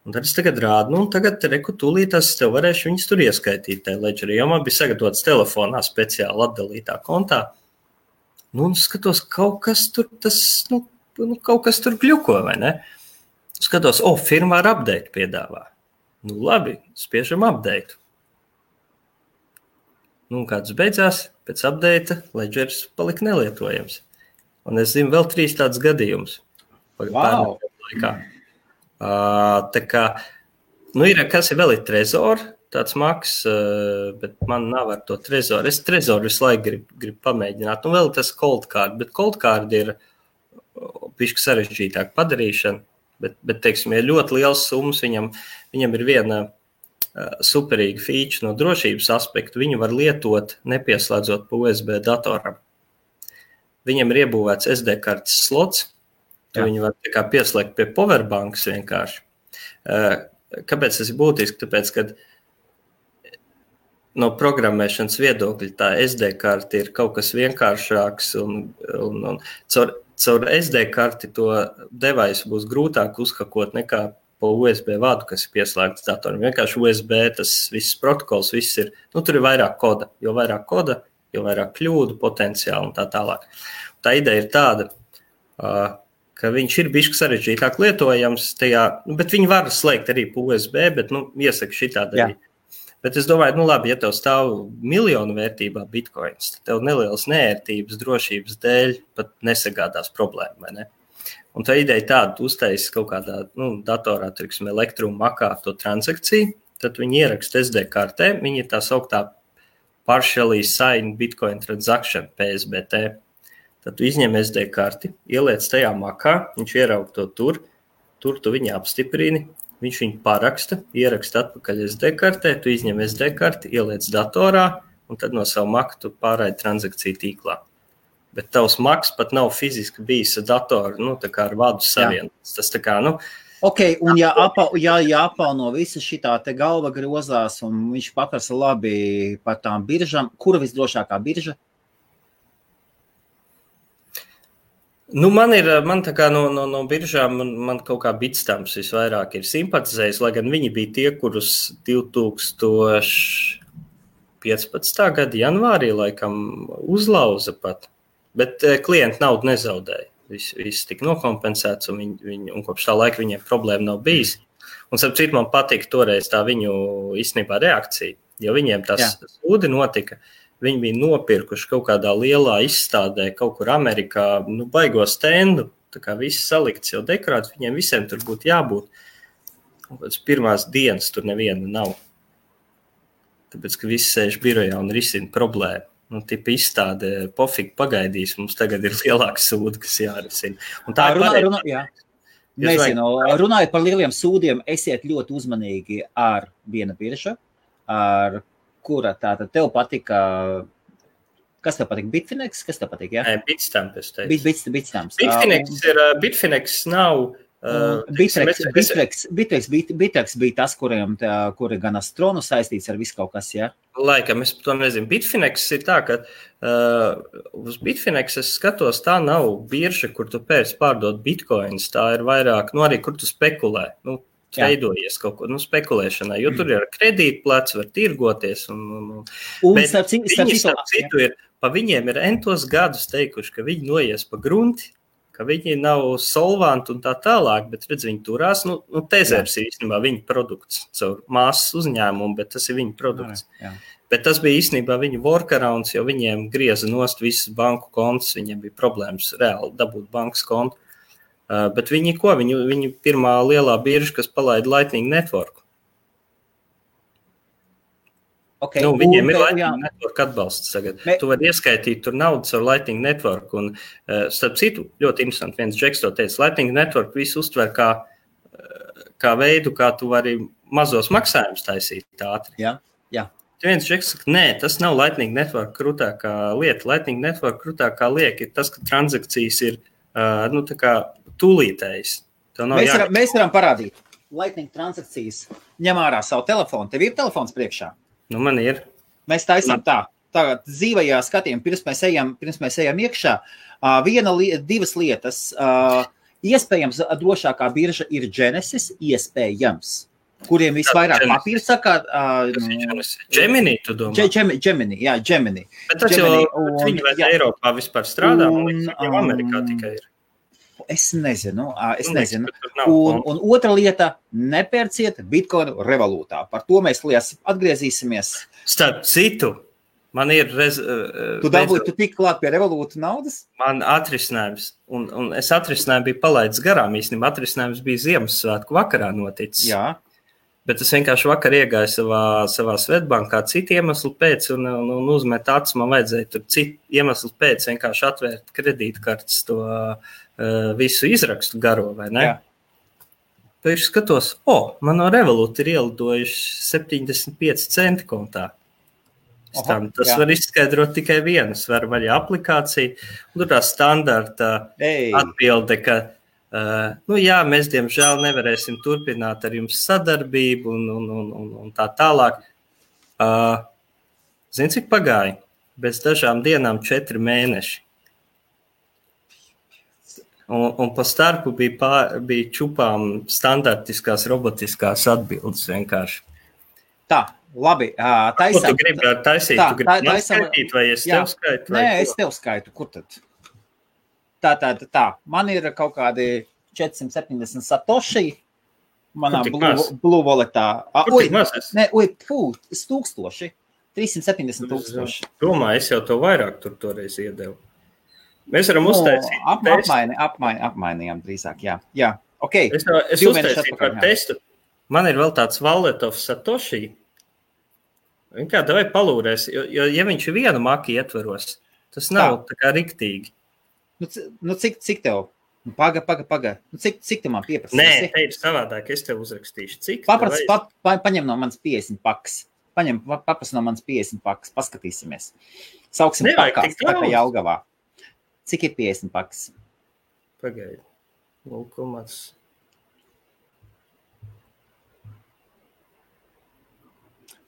Un tad es tagad rādu, tagad tūlītās es tev varēšu viņus tur ieskaitīt tajā ledgerī, jo man bija sagatavots telefonā speciāli atdalītā kontā. Skatos, kaut kas tur kaut kas tur gļuko, vai ne? Skatos, firmā ar update piedāvā. Labi, spiežam update. Kāds beidzās, pēc update ledgers palika nelietojams. Un es zinu vēl 3 tādus gadījumus. Wow! Laikā. Tā kā, kas ir vēl Trezor, tāds maks, bet man nav ar to Trezor. Es Trezor visu laiku gribu pamēģināt. Un vēl tas Cold Card, bet Cold Card ir bišķi sarežģītāk padarīšana, bet teiksim, ja ļoti liels summas, viņam ir viena superīga feature no drošības aspektu, viņu var lietot nepieslēdzot pa USB datoram. Viņam ir iebūvēts SD kartes slots, viņu var tā kā pieslēgt pie powerbanks vienkārši. Kāpēc tas ir būtiski? Tāpēc, kad no programmēšanas viedokļa tā SD karte ir kaut kas vienkāršāks un caur SD karti to devaisu būs grūtāk uzhakot nekā pa USB vadu, kas ir pieslēgts datoram. Vienkārši USB, tas viss protokols, viss ir, tur ir vairāk koda. Jo vairāk koda, jo vairāk kļūdu potenciāli un tā tālāk. Tā ideja ir tāda, ka viņš ir bišķi sarežģītāk lietojams tajā, bet viņi var slēgt arī pa USB, bet, iesaka šitādi arī. Bet es domāju, labi, ja tev stāv miljonu vērtībā bitcoins, tad tev nelielas neērtības drošības dēļ pat nesagādās problēmu, vai ne? Un tā ideja tāda, tu uztaisi kaut kādā datorā, teiksim, Elektrum makā to transakciju, tad viņi ieraksta SD kartē, viņi ir tā sauktā partially signed Bitcoin transaction, PSBT. Tad tu izņem SD karti, ieliec tajā makā, viņš ieraug to tur tu viņu apstiprini, viņš viņu paraksta, ieraksta atpakaļ SD kartē, tu izņem SD karti, ieliec datorā, un tad no savu Mac tu pārraidi transakciju tīklā. Bet tavs Macs pat nav fiziski bijis ar datoru, tā kā ar vadu savienots. Tas tā kā, Ok, un ja apauno visa šitā te galva grozās, un viņš paprasa labi par tām biržām, kura visdrošākā birža? Man tā kā no biržām, man kaut kā Bitstamps visvairāk ir simpatizējis, lai gan viņi bija tie, kurus 2015. Gada janvārī laikam uzlauza pat, bet klienti naudu nezaudēja. Viss tika nokompensēts, un kopš tā laika viņiem problēma nav bijis. Un starp citu man patika toreiz tā viņu īstenībā reakcija, jo viņiem tas sūdi notika. Viņi bija nopirkuši kaut kādā lielā izstādē, kaut kur Amerikā, baigo stendu, tā kā viss salikts jau dekorāts, viņiem visiem tur būtu jābūt. Un pēc pirmās dienas tur neviena nav. Tāpēc, ka visi sēž birojā un risina problēmu. Tipa izstādē pofīgi pagaidīs, mums tagad ir lielāks sūdi, kas jārisina. Un tā runājot par lieliem sūdiem, esiet ļoti uzmanīgi ar viena birža, ar kura tātad tev patika, kas tev patika? Bitfinex? Kas tev patika, jā? Bitstamp, es teicu. Bitstamp. Bitfinex nav... Bittrex bija tas, kuri gan Astronu saistīts ar visu kaut kas, jā? Laikam, es to nezinu. Bitfinex ir tā, ka uz Bitfinex es skatos, tā nav birža, kur tu pēc pārdot bitcoins, tā ir vairāk, arī kur tu spekulē, veidojies kaut ko, spekulēšanai, jo tur ir kredītplats, var tirgoties. Bet viņi starp citu ir, pa viņiem ir entos gadus teikuši, ka viņi noies pa grunti, ka viņi nav solvanti un tā tālāk, bet redz, viņi turās, Tezers ir īstenībā viņa produkts, caur māsas uzņēmumu, bet tas ir viņa produkts. Jā. Bet tas bija īstenībā viņa workarounds, jo viņiem grieza nost visas banku kontus, viņiem bija problēmas reāli dabūt bankas kontu. Bet viņi pirmā lielā birža, kas palaida Lightning Network. Okay. Viņiem ir Lightning Network atbalsts tagad. Tu vari ieskaitīt tur naudas ar Lightning Network. Un, starp citu, ļoti interesanti, viens džeks to teica, Lightning Network visu uztver kā veidu, kā tu vari mazos maksājumus taisīt ātri. Jā. Viens džeks saka, nē, tas nav Lightning Network krūtākā lieta. Lightning Network krūtākā lieta ir tas, ka transakcijas ir tā kā tūlītējs. Mēs varam parādīt. Lightning transakcijas ņem ārā savu telefonu. Tev ir telefons priekšā? Man ir. Mēs taisām tagad dzīvajā skatījumā, pirms mēs ejam iekšā. Divas lietas. Iespējams, drošākā birža ir Genesis, iespējams, kuriem visvairāk papīra sakā. Gemini, tu domā? Gemini. Bet tas Gemini, viņi vai Eiropā vispār strādā, man liekas, jau Amerikā tikai ir. Es nezinu. Un otra lieta, nepērciet bitcoinu revolūtā. Par to mēs atgriezīsimies. Starp citu, man ir... Tu tik klāt pie revolūta naudas? Man atrisinājums, un es atrisinājumu biju palaidis garām, īstenībā atrisinājums bija Ziemassvētku vakarā noticis. Jā. Bet es vienkārši vakar iegāju savā Svetbankā citu iemeslu pēc un uzmet acis, man vajadzēja tur citu iemeslu pēc vienkārši atvērt kredītkartes to visu izrakstu garo, vai ne? Jā. Pēc skatos, man no Revolut ir ielidojuši 75 centi kontā. Tas var izskaidrot tikai vienas, var vaļā aplikācija, un tur tā standarta atbilde, ka mēs, diemžēl, nevarēsim turpināt ar jums sadarbību un tā tālāk. Zini, cik pagāja? Bez dažām dienām 4 mēneši. Un pa starpu bija čupām standartiskās robotiskās atbildes vienkārši. Tā, labi. Taisam. Ko tu gribi taisīt? Tu gribi man skaitīt, vai es tev skaitu? Nē, es tev skaitu. Kur tad? Tā. Man ir kaut kādi 470 satoshi manā Blue Walletā. Es 1000. 370 000. Domāju, es jau to vairāk tur toreiz iedevu. Mēs varam uztaisīt apmainījām drīzāk, jā. Okay. Es uztaisīju par testu. Man ir vēl tāds Wallet of Satoshi. Kā davai palūrēs, jo ja viņš vienu maki ietveros, tas nav tā kā riktīgi. Cik tev? Paga. Cik tu man pieprasīsi? Nē, te ir savādāk, es tev uzrakstīšu. Cik? Paņem no manas 50 pakas. Paprasi no manas 50 pakas, paskatīsimies. Sauksim pakās, tā kā Jelgavā. Cik ir 50 pakas? Pagaidi. 0,.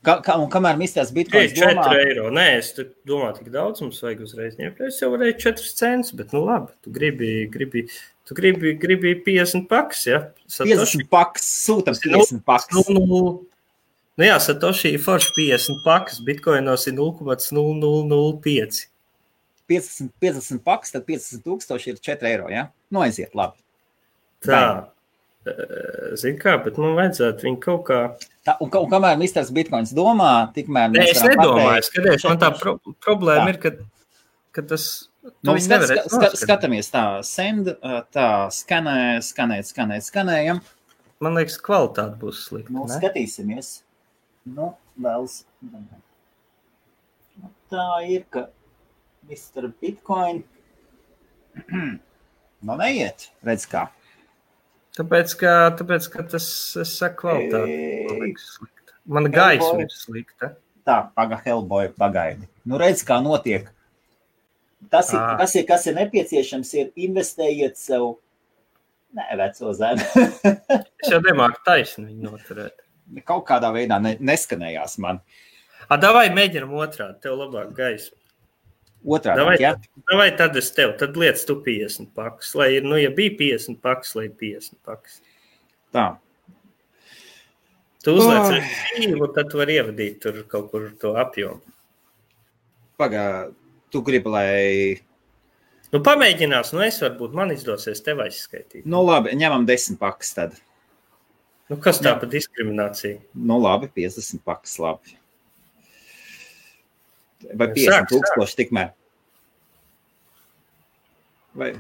Un kamēr mistās bitkoins 4 eiro. Nē, es domāju, tik daudz mums vajag uzreiz ņemt. Es jau varēju 4 centus, bet nu labi, tu gribi 50 pakas, ja? Satoshi. 50 pakas, sūtam 50 pakas. Nu jā, Satoshi ir forši 50 pakas, bitkoinos ir 0,0005. 50 pakas, tad 50,000 ir 4 eiro, ja? Nu aiziet, labi. Tā. Zini kā, bet man vajadzētu viņu kaut kā... Un kamēr misters bitkoins domā, tikmēr... Nē, es nedomāju, skaties, man tā problēma ir, ka tas... Skatāmies tā, send, tā, skanējam. Man liekas, kvalitāte būs slikta, ne? Skatīsimies. Vēlas... Tā ir, ka Mr. Bitcoin... Neiet, redz kā. Tāpēc, ka tas, es saku, kvalitāte. Mana gaisma ir slikta. Tā, Hellboy, pagaidi. Nu, redz, kā notiek. Kas ir nepieciešams, ir investējiet sev, veco zemi. Es jau nemāku taisni viņu noturēt. Kaut kādā veidā neskanējās man. Davai mēģinam otrādi, tev labāk gaisma. Otrādi, jā? Davai tad es tev, tad liec tu 50 pakas, lai ir, ja bija 50 pakas, lai ir 50 pakas. Tā. Tu uzliec rīvu, tad tu vari ievadīt tur kaut kur to apjomu. Tu gribi, lai... Nu, pamēģinās, es varbūt man izdosies tev aizskaitīt. Nu, labi, ņemam 10 pakas tad. Nu, kas tā pa diskriminācija? Nu, labi, 50 pakas, labi. Vai 50,000 tikmēr? Vai,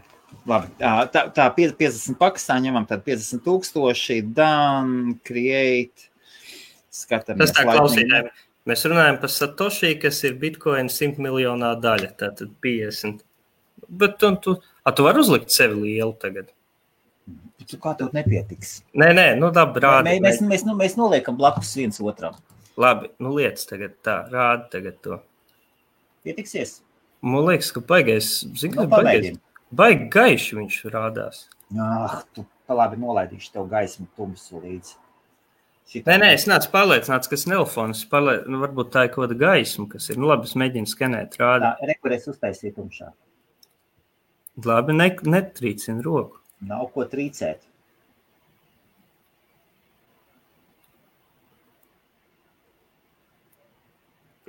labi, tā 50 pakas, tā ņemam tad 50,000, done, create, skatāmies. Tas tā klausītājiem. Mēs runājam par Satoshi, kas ir Bitcoin 100 miljonā daļa, tātad 50. Bet tu vari uzlikt sevi lielu tagad. Tu kā tev nepietiks? Nē, nu labi, rādi. Mēs noliekam blakus viens otram. Labi, nu liec tagad tā, rādi tagad to. Pietiksies? Man liekas, ka baigi gaiši viņš rādās. Tu labi nolaidīšu tev gaismu tumsu līdzi. Nē, es nācu pārliecināts, ka snelfons, varbūt tā ir kaut kāda gaisma, kas ir. Nu labi, es mēģinu skenēt, rādi. Rekurēs uztaisīt tumšā. Labi, netrīcina roku. Nav ko trīcēt.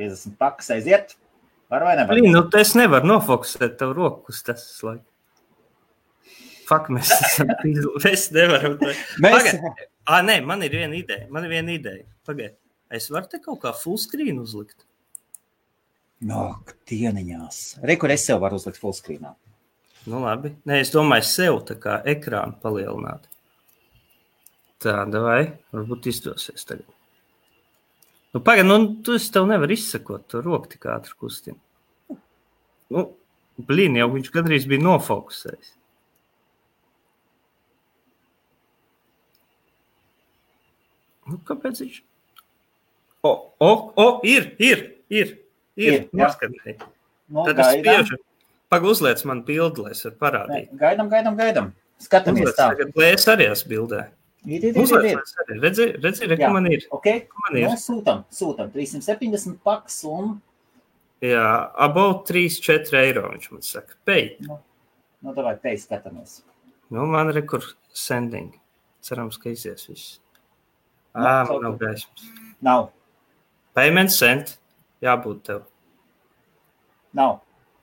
$50 pakas aiziet. Var vai nevar? Nu, es nevaru nofokusēt tev roku uz tas laiku. Fuck, mēs nevaram. Nē, man ir viena ideja. Pagaid, es varu te kaut kā full screen uzlikt? Dieniņās. Kur es sev varu uzlikt full screenā? Nu, labi. Nē, es domāju sev tā kā ekrānu palielināt. Tā, davai, varbūt izdosies tagad. Nu, pagaid, tu tev nevar izsakot, tu roku tik ātri kustina. Nu, jau viņš gandrīz bija nofokusējis. Nu, kāpēc viņš? Ir. Noskatēji. Tad es spiežu. Uzliec man bildi, lai es varu parādīt. Gaidam. Skatamies tā. Tagad, lai es arī esmu bildē. Ir. Redzi, ka man ir. Okay. Sūtam. 370 pakas un... Jā, about 3-4 eiro, viņš man saka. Pay. Nu, davai, pay skatamies. Nu, man rekur sending. Cerams, ka izies viss. Man nav gaismas. Nav. Payment sent. Jābūt tev. Nav.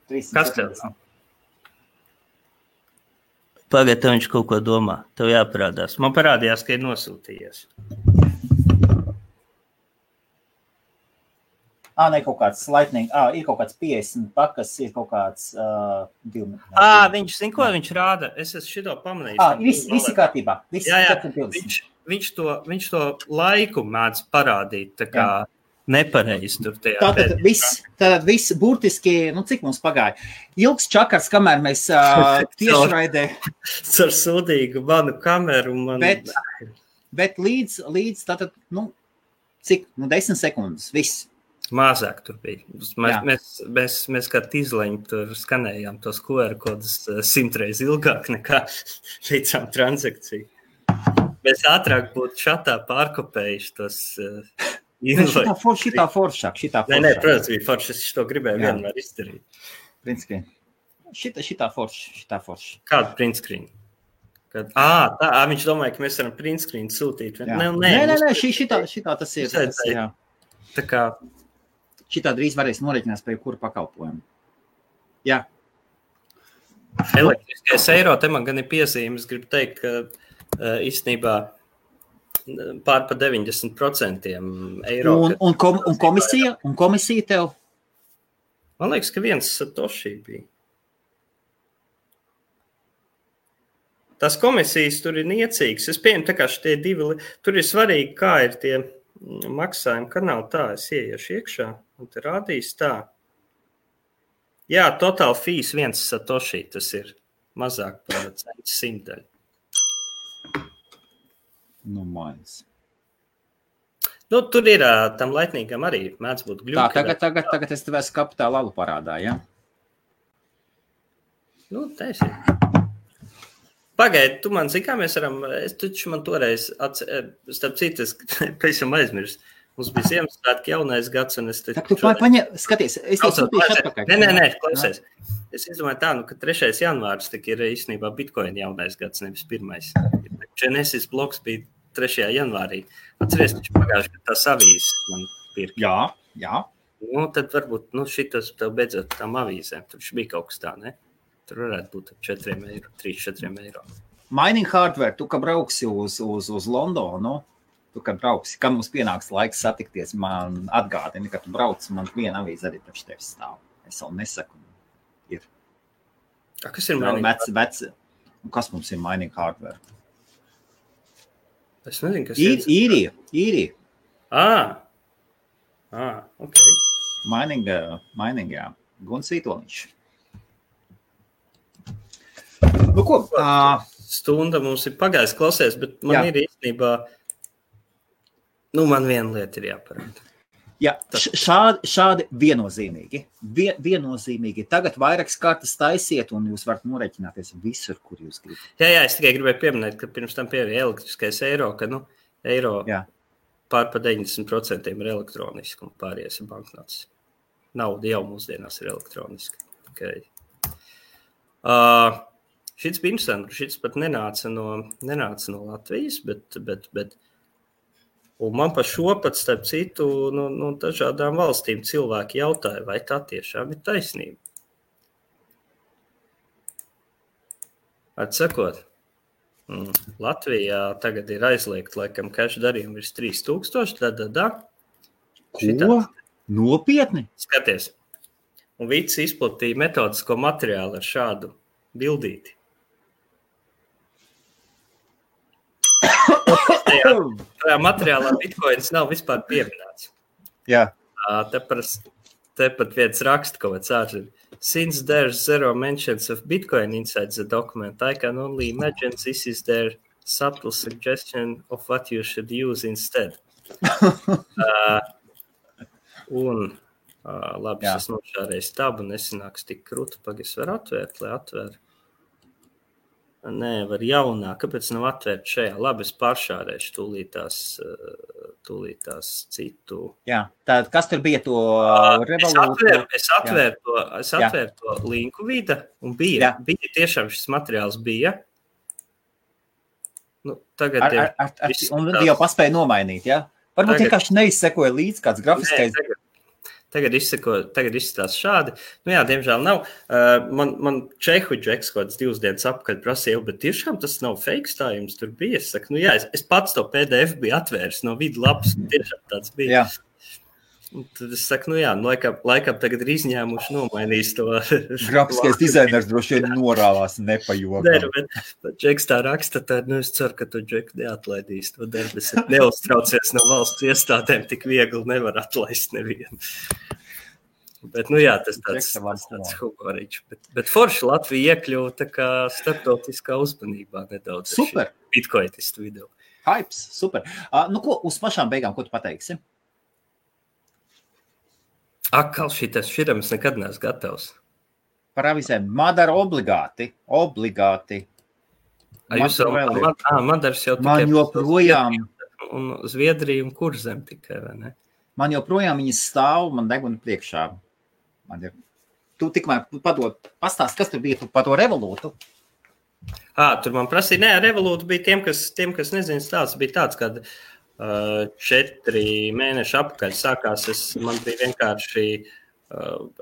370. Kas tev nav? Pagaid, tev viņš kaut ko domā. Tev jāparādās. Man parādījās, ka ir nosūtījies. Ne kaut kāds lightning. Ir kaut kāds 50 pakas, ir kaut kāds 2. Viņš zin, ko viņš rāda? Es esmu šito pamanījis. Visi kārtībā. Jā. Viņš to laiku mēdz parādīt. Tā kā nepareizi tur tajā. Tātad viss burtiski, cik mums pagāja? Ilgs čakars, kamēr mēs tiešraidē. Ar sūdīgu manu kameru. Bet līdz tātad, cik? 10 sekundes, viss. Mazāk tur bija. Mēs kā tīzleņi tur skanējām tos QR kodus 100 reizi ilgāk nekā veicām transakciju. Mēs ātrāk būtu šatā pārkopējuši tos... Šitā foršāk. Nē, protams, bija forši, es to gribēju vienmēr izdarīt. Print-screen. Šitā forši. Kādu print-screen? Viņš domāja, ka mēs varam print-screen sūtīt. Nē, šitā tas ir. Tā kā... Šitā drīz varēs norēķinās pie kura pakalpojumu. Jā. Elektriskais eiro, te man gan ir piezīmes, gribu teikt, ka īstenībā pār pa 90% eiro. Un komisija tev? Man liekas, ka viens satoshi bija. Tās komisijas tur ir niecīgas. Es pieņemu, tā kā šitie divi, tur ir svarīgi, kā ir tie maksājumi kanāli tā. Es ieiešu iekšā un te rādīs tā. Jā, total fees viens satoshi, tas ir mazāk par 100 daļu. Maiz. Tur ir tam laitnīgam arī mēdz būt gļuki. Tagad es tev esmu kapitāla alu parādā, ja? Taisi. Pagaidi, tu man zini, kā mēs varam, es taču man toreiz, starp citu, es pēc jau aizmirst. Mums bija Ziemassvētki jaunais gads, un es te... Skaties, es tev sūtīšu atpakaļ. Nē, klausies. Es izdomāju tā, ka 3. janvārs tik ir īstenībā Bitcoin jaunais gads, nevis 1. Genesis bloks bija 3. janvārī. Atceries, taču pagājuši, ka tās avīzes man pirka. Jā. Tad varbūt, šitas tev beidzot tām avīzēm. Tur bija kaut kas tā, ne? Tur varētu būt 3-4 eiro. Mining hardware, tu, ka brauksi uz Londonu, kad mums pienāks laiks satikties, man atgādini, ka tu brauc, man viena avīze arī priekš tevis stāv. Es vēl nesaku. Ir. Kas ir mining hardware? Kas mums ir mining hardware? Es nezinu, kas ir. Īrija. Ok. Mining, jā. Guns Vītoliņš. Ko? Stunda mums ir pagājis klausies, bet man ir īstenībā, man viena lieta ir jāparāda. Jā, šādi viennozīmīgi. Viennozīmīgi. Tagad vairākas kartas taisiet, un jūs varat norēķināties visur, kur jūs gribat. Jā, es tikai gribēju pieminēt, ka pirms tam pieeja elektriskais eiro, ka eiro pār pa 90% ir elektroniski un pārējais ir banknotes. Nauda jau mūsdienās ir elektroniska. Okay. Šits bija interesanti, šits pat nenāca no Latvijas, bet un man pa šo pat, starp citu, no dažādām valstīm cilvēki jautāja, vai tā tiešām ir taisnība. Atsakot, Latvijā tagad ir aizliegt, laikam, cash darījumi virs 3000, Ko? Nopietni? Skaties. Un Vits izplatīja metodisko materiālu ar šādu bildīti. Tajā materiālā Bitcoins nav vispār pieminēts. Jā. Te pat viens raksta kaut kāds ārzim. Since there's zero mentions of Bitcoin inside the document, I can only imagine this is their subtle suggestion of what you should use instead. Labi, es nošārēju tabu, nesanāks tik krūti, pagais var atvērt, lai atvēr. Nē, var jaunā. Kāpēc nav atvērt šajā? Labi, es pāršārēšu tūlītās citu. Jā, tad kas tur bija to revolūciju? Es atvēru to linku Vida un bija tiešām šis materiāls bija. Tagad un jau paspēja nomainīt, ja? Varbūt vienkārši neizsekoja līdz kāds grafiskais. Tagad izskatās šādi. Jā, diemžēl nav. Man Čehu džeks kaut kāds 2 dienas apakaļ prasīja, bet tiešām tas nav fakes, tā jums tur bija. Es saku, es pats to PDF biju atvēris no vidu lapas, tiešām tāds bija. Jā. Tad es saku, laikam tagad ir izņēmuši nomainījis to. Grafiskais dizainers droši vien norāvās nepajokam. Bet Džeks tā raksta, tad es ceru, ka tu Džeku neatlaidīs to darbu. Es neuztraucies no valsts iestādēm, tik viegli nevar atlaist nevienu. Bet, tas tāds humoriņš. Bet forši Latvija iekļuva tā kā starptautiskā uzmanībā nedaudz. Super. Bitcoinistu vidū. Hypes, super. Ko, uz pašām beigām, ko tu pateiksi? Akal šitam es nekad neesmu gatavs. Par avizēm. Madara obligāti. Madaras jau tikai. Man joprojām. Un Zviedrija un Kurzem tikai, vai ne? Man joprojām viņas stāv, man deguna priekšā. Tu tikmēr pastāst, kas tur bija par to revolūtu? Tur man prasīja, revolūta bija tiem, kas nezina stāsts, bija tāds, kad 4 mēneši apakaļ sākās, man bija vienkārši,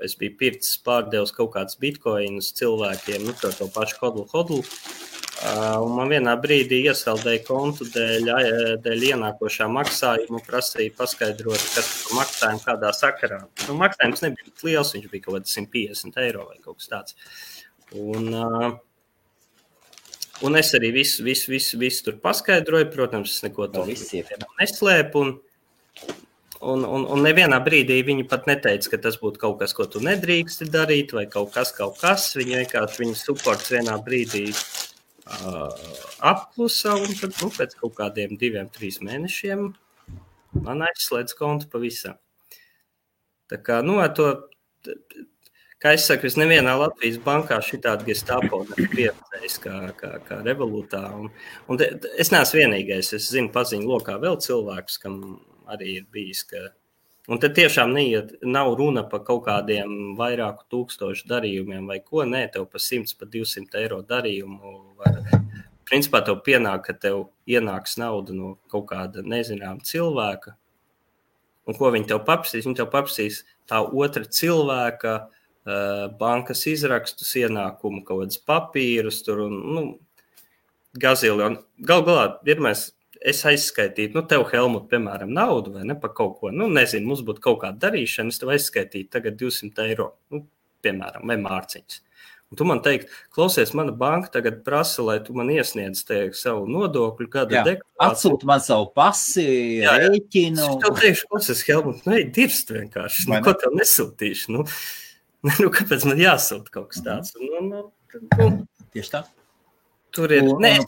es biju pircis pārdevis kaut kāds bitcoinus cilvēkiem, to pašu hodlu, un man vienā brīdī iesaldēja kontu dēļ ienākošā maksājuma, prasīja paskaidrot, kas par maksājumu kādā sakarā. Maksājums nebija liels, viņš bija kaut kāds 150 eiro vai kaut kas tāds. Un es arī visu tur paskaidroju, protams, es neko tur neslēpu, un nevienā brīdī viņi pat neteica, ka tas būtu kaut kas, ko tu nedrīksti darīt, vai kaut kas, viņi vienkārši, viņa supports vienā brīdī apklusa, un tad, pēc kaut kādiem 2-3 mēnešiem man aizslēdz kontu pavisam. Tā kā, kā es saku, es nevienā Latvijas bankā šitādi gestapo pieredzējis kā revolūtā. Un es neesmu vienīgais, es zinu paziņu lokā vēl cilvēkus, kam arī ir bijis, un te tiešām nav runa par kaut kādiem vairāku tūkstošu darījumiem vai ko, tev pa 100, pa 200 eiro darījumu principā tev pienāk, ka tev ienāks nauda no kaut kāda nezināma cilvēka, un ko viņi tev paprasīs? Viņi tev paprasīs tā otra cilvēka bankas izrakstus, ienākumu, kaut kādas papīrus, tur un, gazili. Un galā, es aizskaitītu, tev, Helmut, piemēram, naudu vai ne par kaut ko, nezinu, mums būtu kaut kāda darīšana, es tev aizskaitītu tagad 200 eiro, piemēram, vai mārciņas. Un tu man teikt, klausies, mana banka tagad prasa, lai tu man iesniedz savu nodokļu gada deklarāciju. Atsūti man savu pasi, rēķinu. Es tev teikšu, klausies, Helmut, dirst vienkārši, ko tev nesūtīšu, kāpēc man jāsūt kaut kas tāds? Tieši tā. Tur ir, es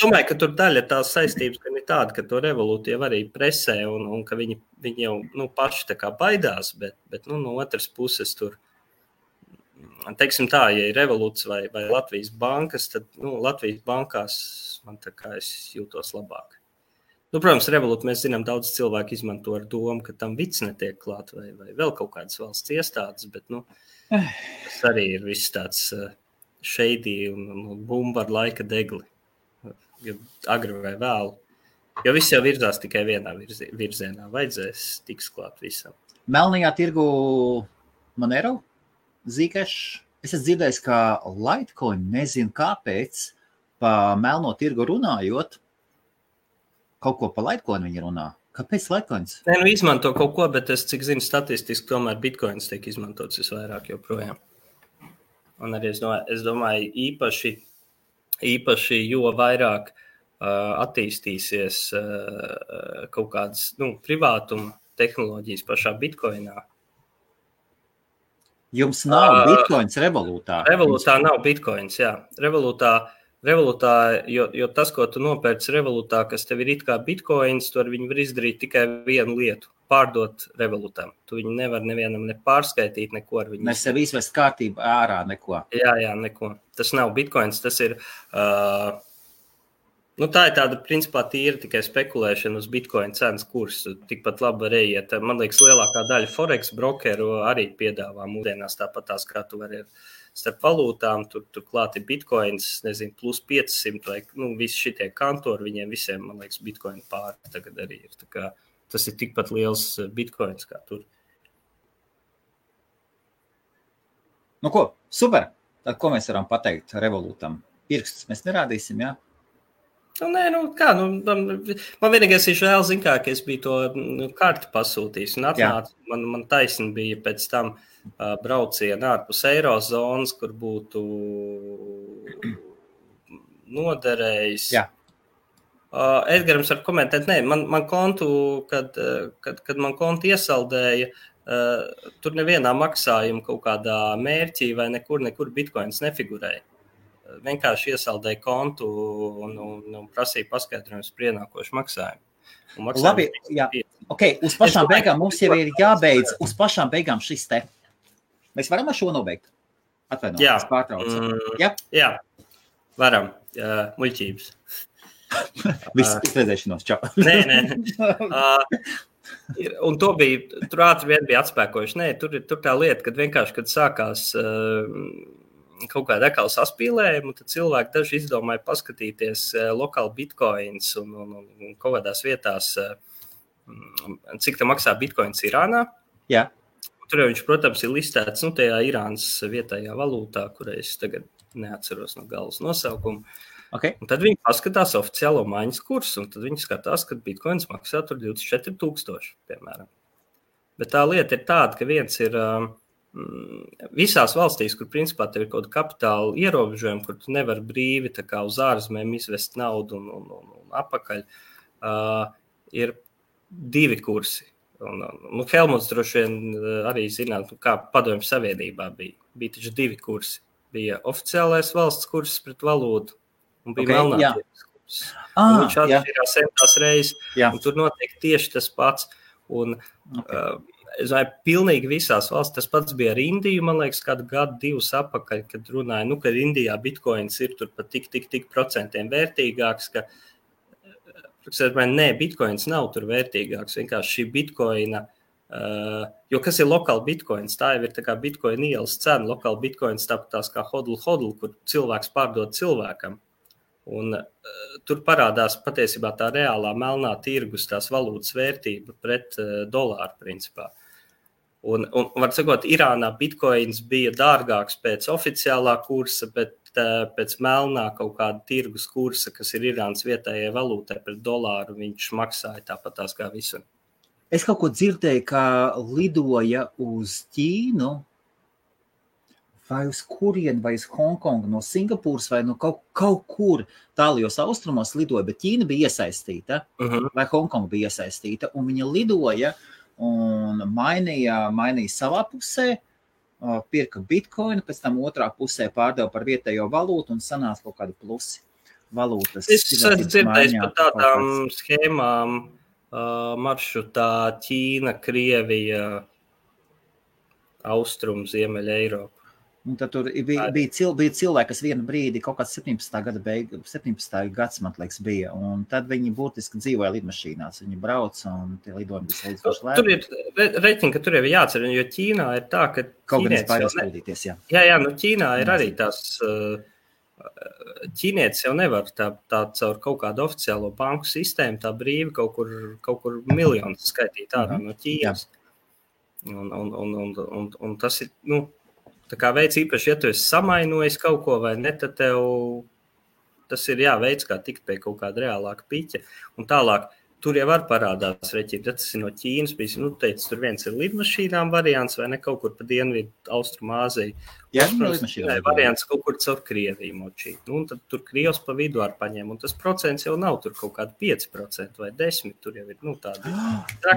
domāju, ka tur daļa tās saistības, ka ir tāda, ka to revolūti jau arī presē un ka viņi jau paši tā kā baidās, bet no otras puses tur, teiksim tā, ja ir revolūts vai Latvijas bankas, tad Latvijas bankās man tā kā es jūtos labāk. Protams, revolūti mēs zinām, daudz cilvēku izmanto ar domu, ka tam vids netiek klāt vai vēl kaut kādas valsts iestādes, bet tas arī ir viss tāds shady un bumba ar laika degli, agri vai vēlu. Jo viss jau virzās tikai vienā virzienā, vajadzēs tiks klāt visam. Melnajā tirgu Monero, Zcash, es esmu dzirdējis, ka Litecoin, nezinu kāpēc, pa melno tirgu runājot, kaut ko pa Litecoin viņi runā. Kāpēc Litecoins? Izmanto kaut ko, bet es, cik zinu, statistiski tomēr Bitcoins tiek izmantots visvairāk joprojām. Un arī es domāju īpaši jo vairāk attīstīsies kaut kādas privātuma tehnoloģijas pašā Bitcoinā. Jums nav Bitcoins revolūtā? Revolūtā nav Bitcoins, jā. Revolūtā, jo tas, ko tu nopērci revolūtā, kas tev ir it kā Bitcoins, tur viņi var izdarīt tikai vienu lietu – pārdot revolūtām. Tu viņu nevar nevienam ne pārskaitīt, neko ar viņu. Mēs sev izvest kārtību ārā, neko. Jā, neko. Tas nav Bitcoins, tas ir, tā ir tāda, principā, tīra tikai spekulēšana uz Bitcoin cenas kursu. Tikpat labi var iet. Man liekas, lielākā daļa Forex brokeru arī piedāvā mūsdienās tāpatās, kā tu vari starp valūtām, tur klāt ir Bitcoins, nezinu, plus 500 vai, visi šitie kantori, viņiem visiem, man liekas, Bitcoin pāri tagad arī ir. Tā kā tas ir tikpat liels Bitcoins kā tur. Ko, super. Tad ko mēs varam pateikt revolūtam? Pirkstus mēs nerādīsim, jā? Man vienīgais ir žēl, ka es biju to karti pasūtījis un atnācu. Man taisni bija pēc tam brauciena ārpus eirozonas, kur būtu noderējis. Jā. Edgarams var komentēt, man kontu, kad man kontu iesaldēja, tur nevienā maksājuma kaut kādā mērķī vai nekur bitcoins nefigurēja. Vienkārši iesaldēja kontu un prasīja paskaidrojumus par ienākošu maksājumu. Labi, jā. Okay, uz pašām beigām mums jau ir jābeidz. Uz pašām beigām šis te. Mēs varam ar šo nobeigt? Atvainojiet, pārtraucu. Jā, varam. Muļķības. Viss redzēšanos, čau. Nē. Un to bija, tur ātri vien bija atspēkojuši. Nē, tur tā lieta, kad vienkārši, kad sākās kaut kāda ekala saspīlējuma, tad cilvēki daži izdomāja paskatīties lokāli bitcoins un kaut kādās vietās, cik tā maksā bitcoins Irānā. Jā. Tur viņš, protams, ir listēts tajā Irānas vietējā valūtā, kurai es tagad neatceros no galvas nosaukumu. Okay. Un tad viņi paskatās oficiālo maiņas kursu, un tad viņi skatās, ka bitcoins maksā tur 24,000, piemēram. Bet tā lieta ir tāda, ka viens ir visās valstīs, kur principā tev ir kaut kāda kapitāla ierobežojuma, kur tu nevar brīvi tā kā uz ārzemēm izvest naudu un apakaļ, ir 2 kursi. Helmuts droši vien arī zināt, kā Padomju Savienībā bija. Bija taču 2 kursi. Bija oficiālais valsts kurs pret valūtu, un bija melnā tirgus kurs. Viņš atšķirās centās reizes, un tur notiek tieši tas pats. Un, es domāju, pilnīgi visās valsts, tas pats bija ar Indiju, man liekas, kādu gadu 2 apakaļ, kad runāja, ka Indijā bitcoins ir tur pat tik procentiem vērtīgāks, ka, bitcoins nav tur vērtīgāks, vienkārši šī bitcoina, jo kas ir lokāli bitcoins, tā jau ir tā kā bitcoin ielas cena, lokāli bitcoins tāpatās kā hodl, kur cilvēks pārdod cilvēkam. Un tur parādās patiesībā tā reālā melnā tirgus, tās valūtas vērtība pret dolāru principā. Un var sakot, Irānā bitcoins bija dārgāks pēc oficiālā kursa, bet pēc melnā kaut kāda tirgus kursa, kas ir Irānas vietējai valūtai pret dolāru, viņš maksāja tāpatās kā visur. Es kaut ko dzirdēju, ka lidoja uz Ķīnu, vai uz kurienu, vai uz Hongkongu, no Singapūras, vai no kaut kur tālajos austrumos lidoja, bet Ķīna bija iesaistīta, vai Hongkonga bija iesaistīta, un viņa lidoja un mainīja savā pusē, pirka bitcoinu, pēc tam otrā pusē pārdeva par vietējo valūtu un sanāca kaut kādi plusi valūtas. Es dzirdēju par tādām schēmām maršrutā Ķīna, Krievija, Austrum, Ziemeļa Eiropa. Un tad tur bija cilvēki, kas vienu brīdi, kaut kāds 17. gads, man liekas, bija, un tad viņi būtiski dzīvoja lidmašīnās. Viņi brauc, un tie lidojumi bija salīdzinoši lēti. Tur ir reiķini, ka tur jau jācer, jo Ķīnā ir tā, ka kaut gan es baidās pildīties, jā. Jā, Ķīnā ir arī tās, ķīnietis jau nevar tā caur kaut kādu oficiālo banku sistēmu, tā brīvi kaut kur miljonus skaitīt ārā no Ķīnas. Un tas ir, tā kā veids īpaši, ja tu esi samainojis kaut ko vai ne, tad tev tas ir veids, kā tikt pie kaut kāda reālāka piķa. Un tālāk, tur jau var parādās reķīt, ja tas ir no Ķīnas, teica, tur viens ir lidmašīnām variants vai ne kaut kur pa dienvidu Austrumāziju. Jā, lidmašīnām. Variants kaut kur caur Krieviju močīt. Un tad tur Krievs pa vidu ar paņem, un tas procents jau nav tur kaut kādi 5% vai 10%, tur jau ir, tādi.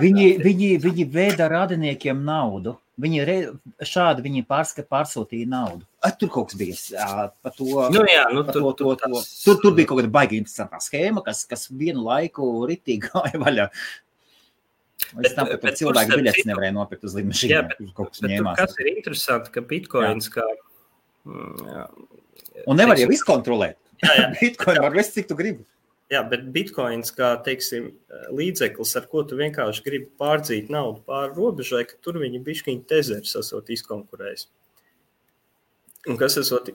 Viņi vēda radiniekiem naudu. Viņi pārsūtīja naudu. Tur kaut kas bija par to. Tur bija kaut kāda baigi interesantā schēma, kas vienu laiku ritīgi gāja vaļā. Es tam, ka cilvēki biļetes nevarēja nopirkt uz lidmašīnām. Kas ir interesanti, ka bitcoins kā... Un nevar jau izkontrolēt. Bitcoin var vest, cik tu gribi. Jā, bet bitcoins kā, teiksim, līdzeklis, ar ko tu vienkārši gribi pārdzīt naudu pāri robežai, ka tur viņi bišķiņi tezeris esot izkonkurējis. Un kas esot,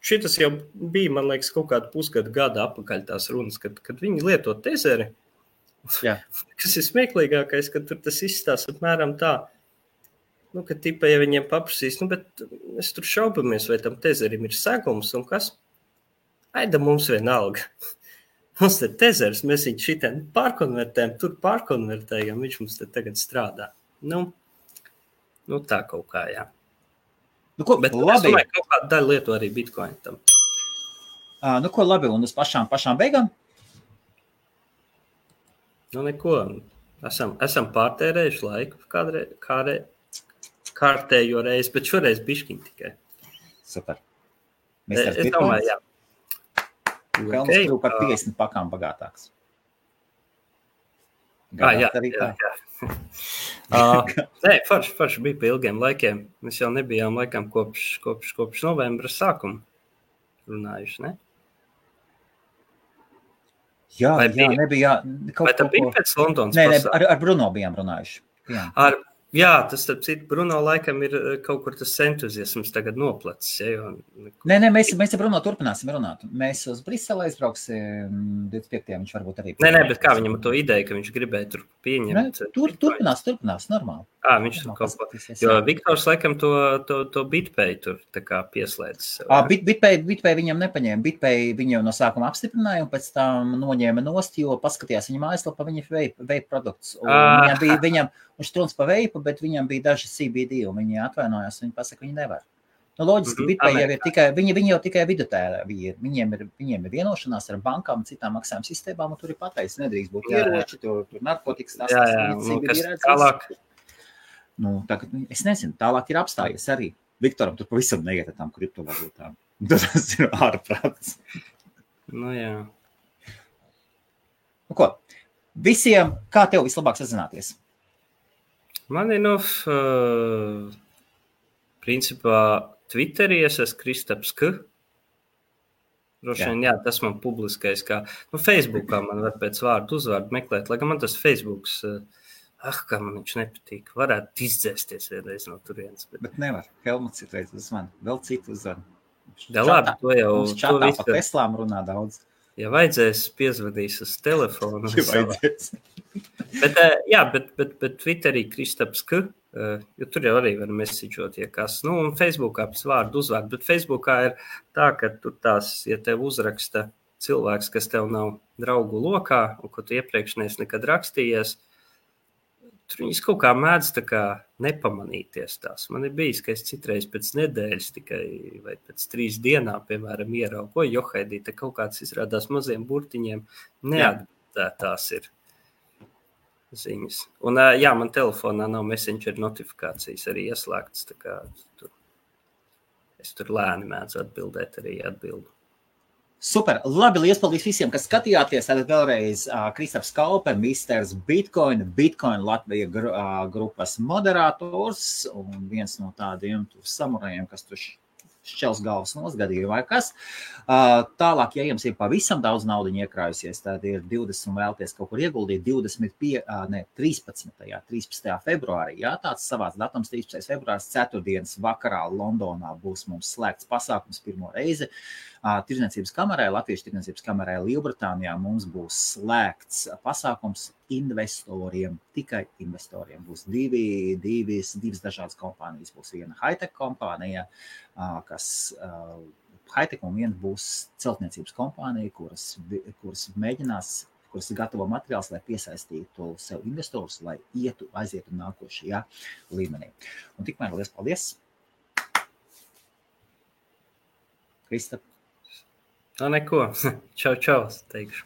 šitas jau bija, man liekas, kaut kādu pusgadu gada apakaļ tās runas, kad viņi lieto tezeri. Jā. Kas ir smieklīgākais, ka tur tas izstās apmēram tā, ka tipa, ja viņiem paprasīs, bet mēs tur šaubamies, vai tam tezerim ir segums un kas? Aida mums vienalga. Mums te tezers, mēs viņu šitien pārkonvertējam, tur pārkonvertējam, viņš mums te tagad strādā. Nu tā kaut kā, jā. Nu, ko, bet labi. Es domāju, kaut kādu daļu lietu arī Bitcoin tam. Nu, ko labi, un uz pašām beigām? Nu, neko. Esam pārtērējuši laiku kārtējo reizi, bet šoreiz bišķiņ tikai. Super. Es domāju, jā. Pelnas kļuvu par 50 pakām bagātāks. Jā. Forši bija pa ilgiem laikiem. Mēs jau nebijām laikam kopš novembra sākuma runājuši, ne? Jā, nebija. Vai tā bija pēc Londonas pasākuma? Nē, ar Bruno bijām runājuši. Jā, tas, starp citu, Bruno laikam ir kaut kur tas entuziasms tagad noplacis. Ja, Nē, mēs ar Bruno turpināsim runāt. Mēs uz Brisele aizbrauksim 25. Viņš varbūt arī... Nē, bet kā viņam to ideju, ka viņš gribēja tur pieņemt? Turpinās, normāli. Viņš tur kaut ko... Jo Viktors laikam to BitPay tur tā kā pieslēdzis. BitPay viņam nepaņēma. BitPay viņu no sākuma apstiprināja un pēc tam noņēma nost, jo paskatījās viņa mājaslapā, viņa vape produkts. Viņš trunc pa veipu, bet viņam bija daži CBD, un viņi atvainojās, viņi pasaka, viņi nevar. Nu, loģiski, BitPay jau ir tikai, viņi jau tikai vidutēri ir. Viņiem ir vienošanās ar bankām, citām maksājuma sistēmām, un tur ir pateicis, nedrīkst būt ieroči, tur narkotikas, tas CBD redz. Tālāk. Nu, tagad, es nezinu, tālāk ir apstājies arī. Viktoram tur pavisam neiet ar tām kriptovalūtām. Tas ir ārprāts. Nu, jā. Nu, ko? Visiem, kā tev vislabāk sazināties? Man ir, principā, Twitterī es esmu Kristaps K. Drošien, jā, tas man publiskais, kā, Facebookā man var pēc vārdu uzvārdu meklēt, lai gan man tas Facebooks, kā man viņš nepatīk, varētu izdzēsties vienreiz no turienes. Bet nevar, Helmuts ir reiz uz mani, vēl citu uzvārdu. Jā, labi, to jau... Mums čatā pa Teslām runā daudz. Ja vajadzēs, piezvadīs uz telefonu. Bet Twitterī Kristaps K, jo tur jau arī var mesiģot, ja kas. Un Facebookā pēc vārdu uzvārdu, bet Facebookā ir tā, ka tur tās, ja tev uzraksta cilvēks, kas tev nav draugu lokā, un ko tu iepriekš neesi nekad rakstījies, tur viņas kaut kā mēdz tā kā nepamanīties tās. Man ir bijis, ka es citreiz pēc nedēļas tikai vai pēc 3 dienām, piemēram, ieraugu, ko Johaidī, te kaut kāds izrādās maziem burtiņiem neatbildētās ir ziņas. Un jā, man telefonā nav Messenger notifikācijas arī ieslēgtas, tā kā es tur lēni mēdzu atbildēt arī atbildu. Super, labi, liels paldies visiem, kas skatījāties. Tad vēlreiz Kristaps Kaupe, Misters Bitcoin Latvija grupas moderators un viens no tādiem samurajiem, kas tur šķels galvas nosgadīja vai kas. Tālāk, ja jums ir pavisam daudz naudiņu iekrājusies, tad ir 20 un vēlties kaut kur ieguldīt 13. februārī. Jā, tāds savāds datums 13. februārs, 4. vakarā Londonā būs mums slēgts pasākums pirmo reizi. Tirdzniecības kamerē, Latviešu tirdzniecības kamerē Lielbritānijā mums būs slēgts pasākums investoriem, tikai investoriem. Būs divas dažādas kompānijas. Būs viena high-tech kompānija, kas high-tech un viena būs celtniecības kompānija, kuras gatavo materiāls, lai piesaistītu sev investorus, lai aizietu nākošajā līmenī. Un tikmēr liels paldies! Kristap! Neko. Čau, teikšu.